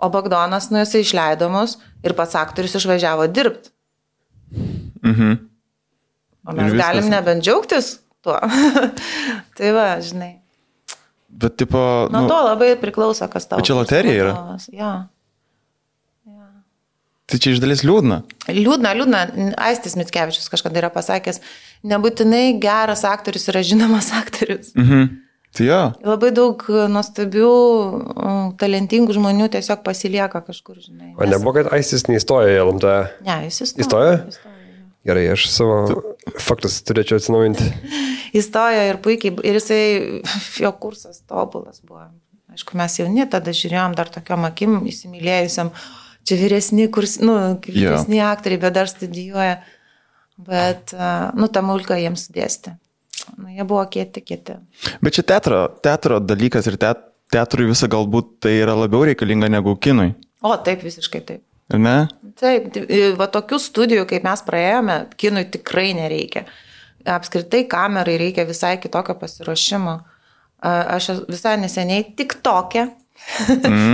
O Bagdonas, jisai išleidomus ir pats aktorius išvažiavo dirbti. O mes galim nebent džiaugtis tuo. Tai va, žinai. Bet tipo... Nuo to labai priklauso, kas tavo. Bet čia loterija yra? Ja. Tai čia iš dalies liūdna. Liūdna. Aistis Mickevičius kažkada yra pasakęs, nebūtinai geras aktorius yra žinomas aktorius. Tai jo. Labai daug nuostabių, talentingų žmonių tiesiog pasilieka kažkur, žinai. O nebuvo, kad Aistis neįstojo į LMT? Ne, jis įstojo. Įstojo? Gerai, aš savo faktus turėčiau atsinaujinti. Įstojo ir puikiai, ir jisai, jo kursas tobulas buvo. Aišku, mes jauni tada žiūrėjom dar tokiom akim įsimylėjusiam, čia vyresni aktoriai, bet dar studijuoja. Bet, Tamulka jiems dėstė. Jie buvo kieti. Bet čia teatro dalykas ir teatrui visą galbūt tai yra labiau reikalinga negu kinui. O, taip, visiškai taip. Ir ne? Taip, va tokių studijų, kaip mes praėjome, kinui tikrai nereikia. apskritai kamerai reikia visai kitokio pasiruošimo. Aš visai neseniai tik tokia,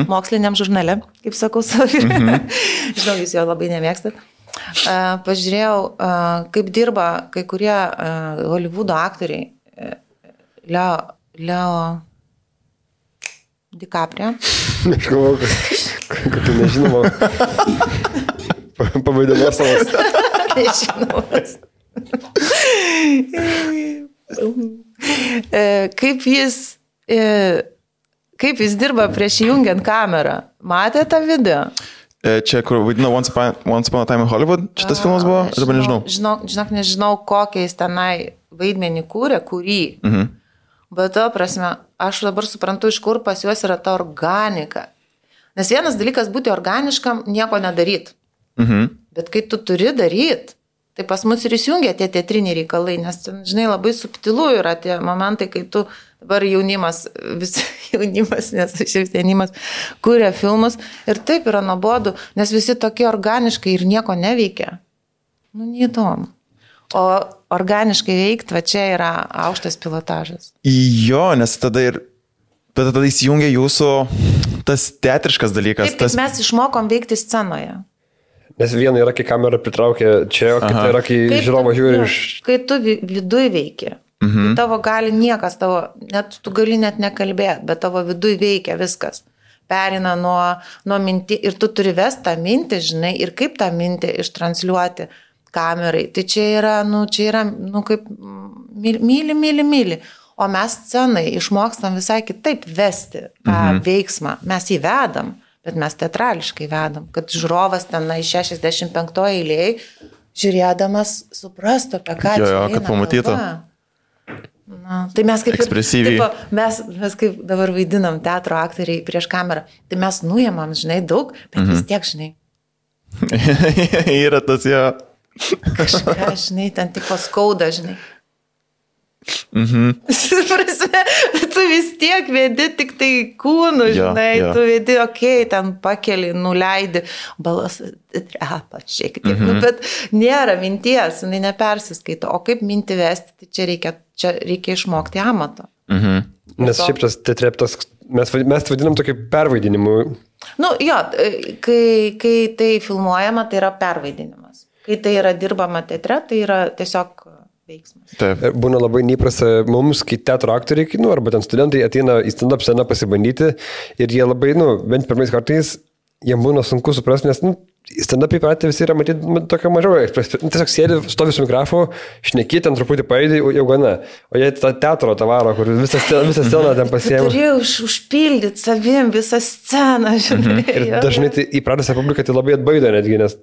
moksliniam žurnale, kaip sakau savo. Žinau, jūs jo labai nemėgstat. Pažiūrėjau, kaip dirba kai kurie Hollywoodo aktoriai. Leo DiCaprio. Aš galvoju, kad tu nežinoma. Pavaidimas savas. Nežinomas. Kaip jis dirba prieš įjungiant kamerą? Matė tą video? Čia, kur vaidino Once Upon a Time in Hollywood, šitas filmas buvo? Dabar nežinau. Žinok, nežinau, kokią jis tenai vaidmenį kūrė, kurį. Bet to prasme, aš dabar suprantu, iš kur pas juos yra ta organika. Nes vienas dalykas būti organiškam, nieko nedaryt. Bet kai tu turi daryt, tai pas mus ir įsijungia tie teatriniai reikalai, nes, žinai, labai subtilu yra tie momentai, kai tu dabar jaunimas, nes šis jaunimas kūrė filmus ir taip yra nuobodu, nes visi tokie organiškai ir nieko neveikia. Neįdomu. O organiškai veikti, va čia yra aukštas pilotažas. Jo, nes tada įsijungia jūsų tas teatriškas dalykas. Taip, mes išmokom veikti scenoje. Nes viena yra, kai kamera pritraukia čia, o kita yra, kai žiūrovas žiūri iš... Kai tu viduj veiki, tavo gali niekas, tu gali net nekalbėti, bet tavo viduj veikia viskas. Perina nuo mintį ir tu turi vesti tą mintį, žinai, ir kaip tą mintį ištransliuoti kamerai. Tai čia yra kaip myli. O mes scenai išmokstam visai kitaip vesti tą veiksmą. Mes jį vedam. Bet mes teatrališkai vedam, kad žiūrovas ten iš 65 eilėj žiūrėdamas suprastų, apie ką čia eina. Kad pamatytų. Tai mes kaip ekspresyviai. Mes kaip dabar vaidinam teatro aktoriai prieš kamerą, tai mes nuėmam, žinai, daug, bet vis tiek, žinai. Yra tas jo. Kažką, žinai, ten tik paskauda, žinai. Prasme, tu vis tiek vedi tik tai kūnų, žinai, tu vedi, ten pakeli, nuleidi, balsas trepa šiek tiek, bet nėra minties, jinai nepersiskaito, o kaip mintį vesti, tai čia reikia išmokti amato. Nes šiaip tas teatreptas, mes vadinam tokį pervaidinimu. Kai tai filmuojama, tai yra pervaidinimas. Kai tai yra dirbama teatre, tai yra tiesiog veiksmas. Taip. Būna labai neįprasta mums, kai teatro aktoriai, arba ten studentai ateina į stand-up sceną pasibandyti ir jie labai, bent pirmais kartais, jiems būna sunku suprasti, nes stand-up įpratę visi yra matyti tokio mažiau. Tiesiog sėdi, stovi su mikrofonu, šneki, ten truputį paėdė, jau gana. O jie tą teatro tavaro, kur visą sceną ten pasiėmė. Turėjau užpildyti savim visą sceną, žinai. Ir dažnai tai įpratęs publiką tai labai atbaido netgi, nes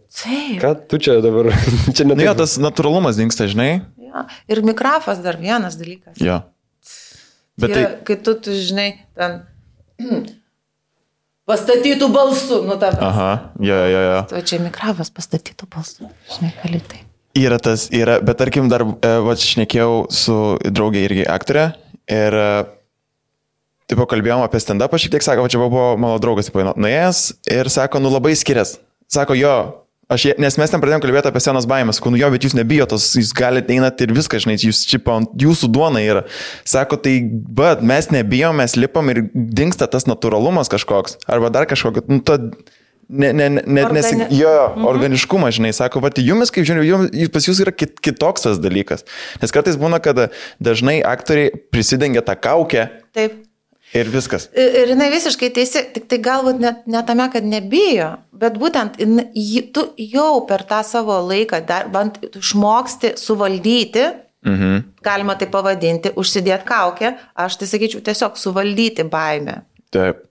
ką tu čia dabar? Jo, tas natūralumas dingsta, žinai. Ir mikrofas dar vienas dalykas. Jo. Bet tai... Kai tu žinai, ten pastatytų balsu, tavęs. Aha, jo. O čia mikrofas pastatytų balsu, žinai, kalitai. Yra, bet tarkim dar, šnekėjau su draugė irgi aktorė ir kalbėjom apie stand-upą, šiek tiek sako, čia buvo mano draugas, nuėjęs ir sako, labai skirias. Sako, jo. Nes mes ten pradėjom kalbėti apie senos baimės, bet jūs nebijotos, jūs galite einat ir viską, žinai, jūsų duona yra. Sako, tai, bet mes nebijom, mes lipam ir dingsta tas natūralumas kažkoks, arba dar kažkokio, organiškumas, žinai, sako, jumis, kaip žinai, pas jūs yra kitoks tas dalykas. Nes kartais būna, kad dažnai aktoriai prisidengia tą kaukę. Taip. Ir viskas. Ir jinai visiškai teisi, tik tai galbūt ne tame, kad nebijo, bet būtent tu jau per tą savo laiką bent išmoksti suvaldyti, galima tai pavadinti, užsidėti kaukę, aš tai sakyčiau tiesiog suvaldyti baimę. Taip.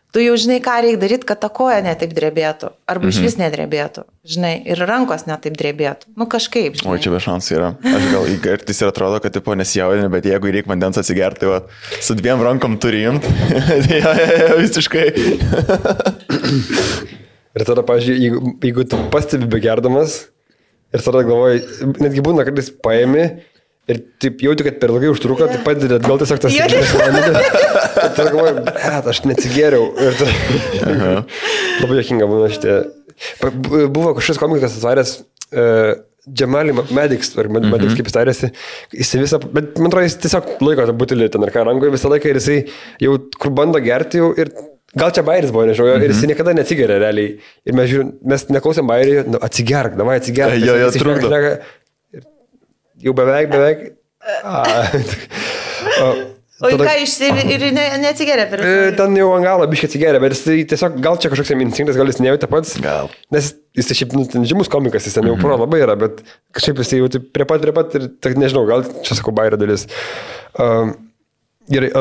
Tu jau žinai, ką reikia daryti, kad ta koja netaip drebėtų, arba iš vis nedrebėtų, žinai, ir rankos netaip drebėtų. Kažkaip, žinai. O čia be šansų yra. Aš gal įgartis ir atrodo, kad nesijaudini, bet jeigu reikia vandens atsigerti, su 2 rankom turi imti, visiškai. Ir tada, pavyzdžiui, jeigu tu pastebi begerdamas ir tada galvoji, netgi būna, kad jis paėmė, ir taip jauti, kad per ilgai užtruko, tai padedi atgal tiesiog tas įgyvenimas. Ir tada galvoju, aš neatsigėriau. Labai juokinga būna šitie. Buvo kažkas komikas atvaręs Džemali Medics, ar Medics kaip jis tarėsi, jis visą, bet man atrodo, jis tiesiog laiko tą butelį ten ar ką rangoje visą laiką ir jisai jau kur bando gerti jau ir gal čia bairis buvo, nežinau, ir jis niekada neatsigeria realiai. Ir mes žiūrim, mes neklausėm bairį, nu, atsigerk, davai atsigerk. Jo, trukdo. Jau beveik. O ką ir neatsigeria per ten jau ant galo biškai atsigeria, bet jis tiesiog gal čia kažkoks instinktas, gal jis nejautė pats. Gal. Nes jis tai šiaip žymus komikas, jis ten jau pro labai yra, bet kažkaip jis jau prie pat ir nežinau, gal čia sakau bairio dalis. Gerai,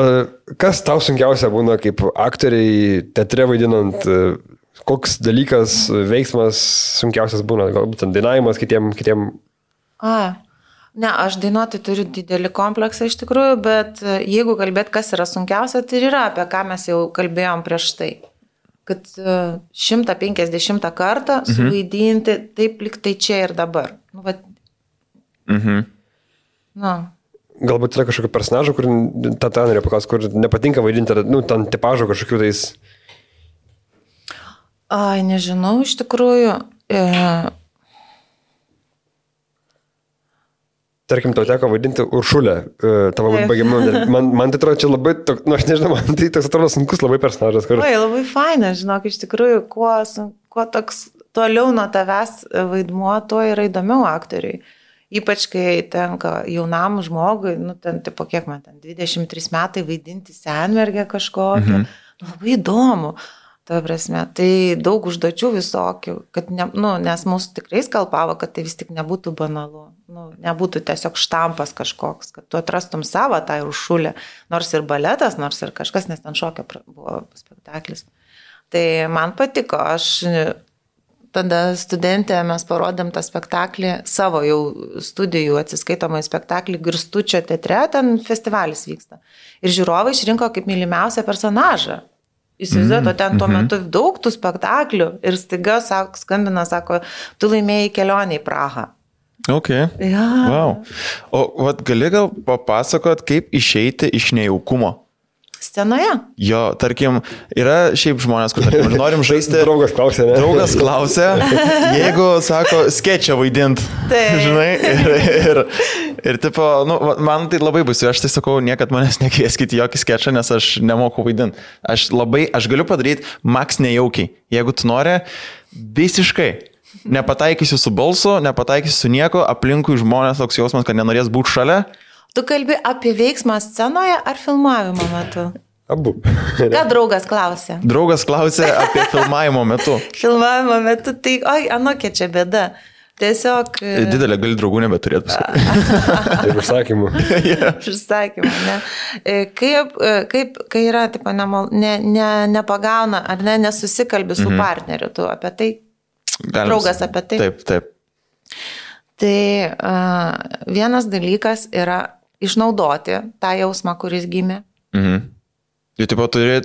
kas tau sunkiausia būna kaip aktoriai teatre vaidinant, koks dalykas, veiksmas sunkiausias būna, galbūt dainavimas kitiem? Ne, aš dainuoti turiu didelį kompleksą iš tikrųjų, bet jeigu kalbėt, kas yra sunkiausia, tai yra apie ką mes jau kalbėjom prieš tai. Kad 150 kartą suvaidinti taip lyg tai čia ir dabar. Nu, vat... Galbūt yra kažkokio personažo, kur tą norėjau paklausti, kur nepatinka vaidinti, nu, ten tipažo kažkokių tais... Nežinau, iš tikrųjų... Tarkim, tau teko vaidinti Uršulę, tavo baigiamą. Man tai atrodo, čia labai, aš nežinau, man tai toks atrodo sunkus labai personažas. Oi, labai faina, žinok, iš tikrųjų, kuo toks toliau nuo tavęs vaidmuo, tuo yra įdomiau aktoriui. Ypač, kai tenka jaunam žmogui, nu, ten, tipo, kiek man ten, 23 metai vaidinti senmergę kažkokią, labai įdomu. Ta prasme, tai daug užduočių visokių, kad nes mūsų tikrai skalpavo, kad tai vis tik nebūtų banalu, nebūtų tiesiog štampas kažkoks, kad tu atrastum savo tą Uršulę, nors ir baletas, nors ir kažkas, nes ten šokio buvo spektaklis. Tai man patiko, aš tada studentė, mes parodėm tą spektaklį, savo jau studijų atsiskaitomą spektaklį Girstučio teatre, ten festivalis vyksta. Ir žiūrovai išrinko kaip mylimiausią personažą. Įsivaizduoju, ten tuo metu daug tų spektaklių ir staiga skambina, sako, tu laimėjai kelionę į Prahą. Ok. Ja. Wow. O gali gal papasakot, kaip išeiti iš nejaukumo? Scenoje? Jo, tarkim, yra šiaip žmonės, kur tarkim, norim žaisti. Draugas klausė, ne? Draugas klausė, jeigu, sako, skečą vaidint. Žinai, ir tipo, nu, man tai labai bus, aš tai sakau, niekad manęs nekvieskit jokį skečą, nes aš nemoku vaidint. Aš galiu padaryti maks nejaukiai. Jeigu tu nori, visiškai. Nepataikysiu su balsu, nepataikysiu su nieko, aplinkui žmonės toks jausmas, kad nenorės būti šalia. Tu kalbi apie veiksmą scenoje ar filmavimo metu? Abu. Ką draugas klausė? Draugas klausė apie filmavimo metu. Filmavimo metu, tai, anokia čia bėda. Tiesiog... Didelė gali draugų nebeturėti paskui. Ir užsakymų. Užsakymų, ne. Kaip, kai yra, tipo, nepagauna, ar nesusikalbi su partneriu, tu apie tai, draugas apie tai. Taip. Tai vienas dalykas yra išnaudoti tą jausmą, kuris gimė. Jau taip pat turi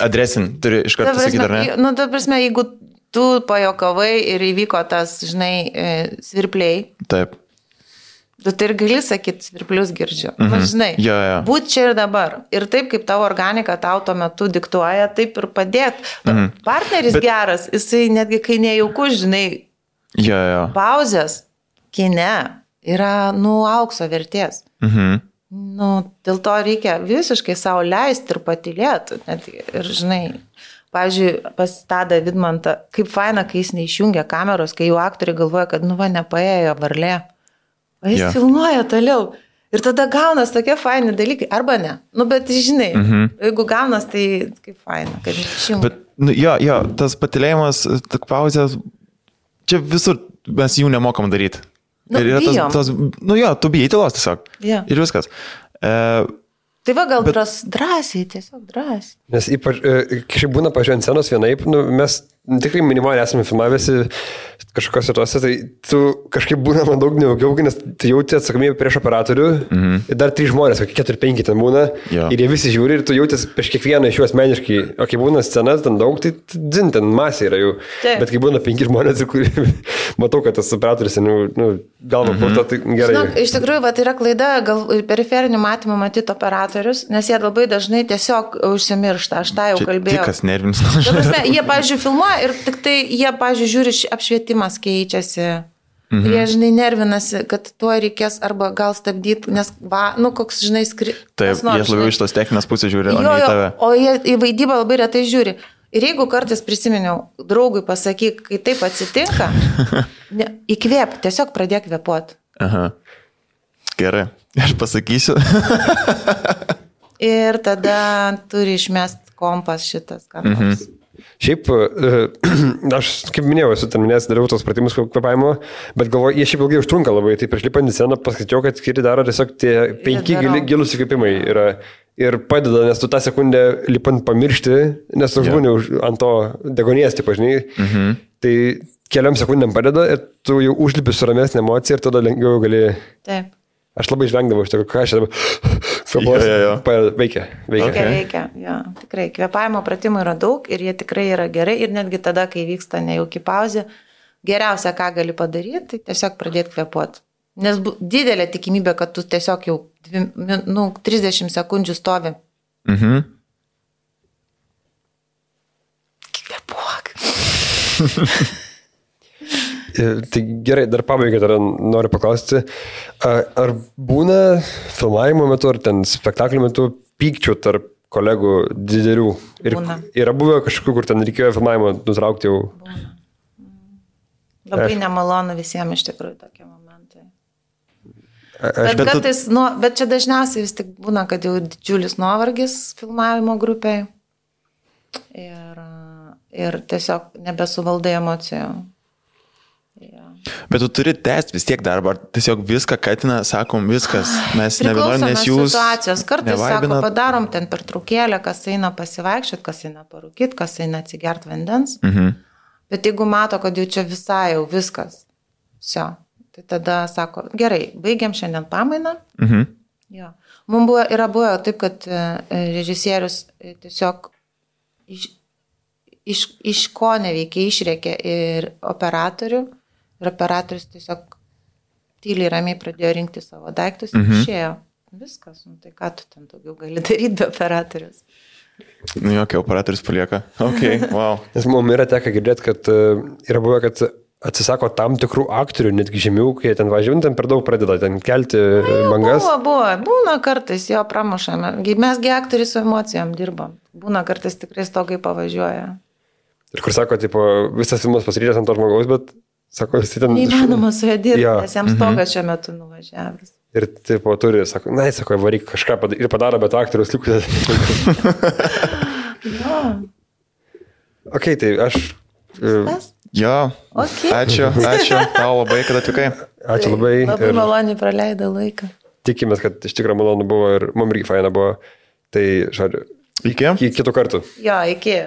adresin, turi iš karto sakyti, ar ne? Nu, ta prasme, jeigu tu pajokavai ir įvyko tas, žinai, svirpliai. Taip. Tu tai ir gali sakyti, svirplius girdžiu. Žinai, būt čia ir dabar. Ir taip, kaip tavo organika tau tuo metu diktuoja, taip ir padėt. Partneris geras, jisai netgi kai nejauku, žinai, pauzės kine yra, aukso vertės. Dėl to reikia visiškai savo leisti ir patylėti. Ir, žinai, pavyzdžiui, pas Tadą Vidmantą, kaip faina, kai jis neišjungia kameros, kai jau aktoriai galvoja, kad, nepaėjo varlė. O jis filmuoja toliau. Ir tada gaunas tokie faini dalykai. Arba ne. Bet, žinai, jeigu gaunas, tai kaip faina, kad neišjungia. Bet, tas patylėjimas, pauzės, čia visur mes jų nemokam daryti. Ir yra tu bijai tylos tiesiog. Ir viskas. Tai va, gal drąsiai, tiesiog drąsiai. Nes ypač, kažkaip būna pažiūrėjant scenos vienaip, mes tikrai minimaliai esame filmavęsi kažkokios situacijas, tai tu kažkaip būna man daug neugiau, nes tu jauti atsakomybę prieš operatorių ir dar 3 žmonės, 4-5 ten būna ir jie visi žiūri ir tu jautis prieš kiekvieną iš jų asmeniškai, o kai būna scenas ten daug, tai dzin, ten masė yra jų, bet kai būna 5 žmonės, kur matau, kad tas operatorius galva purto, tai gerai. Žinok, iš tikrųjų, va, tai yra klaida, gal periferinių matymų matyti operatorius, nes jie labai dažnai tiesiog užsimiršta, aš tą jau kalbėjau. Tikas nervinis. Jie, pavyzdžiui, filmuoja ir tik tai jie, pavyzdžiui, žiūri, apšvietimas keičiasi. Ir jie, žinai, nervinasi, kad tuo reikės arba gal stabdyti, nes, koks, žinai, Taip, jie labiau iš tos techninės pusės žiūri, o ne į tave. O jie į vaidybą labai retai žiūri. Ir jeigu kartais prisiminiau, draugui pasakyk, kai taip atsitinka, įkvėp, tiesiog pradėk kvėpuoti. Aha. Gerai, aš pasakysiu. Ir tada turi išmest kompas šitas, ką nors. Šiaip, aš, kaip minėjau, esu ten minėjęs, dariau tos pratimus kvėpavimo, bet galvoju, jie šiaip ilgai užtrunka labai, tai prieš lipant į sceną paskaičiau, kad kiti daro tiesiog tie 5 gilus įkvėpimai yra ir padeda, nes tu tą sekundę lipant pamiršti, nes tu žmonių ant to degonės, taip žinai, tai keliam sekundėm padeda ir tu jau užlipi su ramesnė emocija ir tada lengviau gali... Taip. Aš labai žvengdavau iš to, ką aš dabar veikia. Veikia, jo. Tikrai, kvėpavimo pratimų yra daug ir jie tikrai yra gerai ir netgi tada, kai vyksta nejauki pauzė, geriausia, ką gali padaryti, tai tiesiog pradėti kvėpuoti. Nes didelė tikimybė, kad tu tiesiog jau 30 sekundžių stovi. Kvėpuok. Tai gerai, dar pabaigai dar noriu paklausti, ar būna filmavimo metu ar ten spektaklio metu pykčių tarp kolegų didelių? Ir yra buvę kažkokių, kur ten reikėjo filmavimo nutraukti jau? Būna. Labai nemalonu visiems iš tikrųjų tokie momentai. Bet čia dažniausiai vis tik būna, kad jau didžiulis nuovargis filmavimo grupiai ir tiesiog nebesuvaldai emocijų. Bet tu turi tęsti vis tiek darbą, ar tiesiog viską katina, sakom, viskas, mes nebenorim, nes jūs... Situacijos. Kartais sako, padarom ten pertraukėlę, kas eina pasivaikščiot, kas eina parūkyt, kas eina atsigert vandens. Bet jeigu mato, kad jau čia visai jau viskas, tai tada sako, gerai, baigiam šiandien pamainą. Mums yra buvę taip, kad režisierius tiesiog iš ko neveikia, išrėkė ir operatorių. Ir operatorius tiesiog tyliai ramiai pradėjo rinkti savo daiktus ir išėjo. Viskas, tai ką tu ten daugiau gali daryti be operatorius? Jokia, operatorius palieka. Ok, wow. Nes mums yra teka girdėti, kad yra buvę, kad atsisako tam tikrų aktorių, netgi žemiau, kai ten važiuojant, ten per daug pradeda ten kelti bangas. Būna kartais, jo pramušame. Mesgi aktoriai su emocijom dirbam. Būna kartais tikrai stogai pavažiuoja. Ir kur sako, tipo, visas filmas pasiryžęs ant to žmogaus, bet sako, jis ten... Neįmanoma su juo dirbti, nes jam stogas šiuo metu nuvažiavęs. Ir tipo turi, sako, varyk kažką ir padaro, bet aktorius likus. Ok, tai aš... Jo, ačiū tau labai, kad atvykai. Ačiū labai. Labai maloniai praleido laiką. Tikimės, kad iš tikrųjų malonu buvo ir mums irgi faina buvo. Tai, žodžiu, iki kitų kartų. Jo, iki.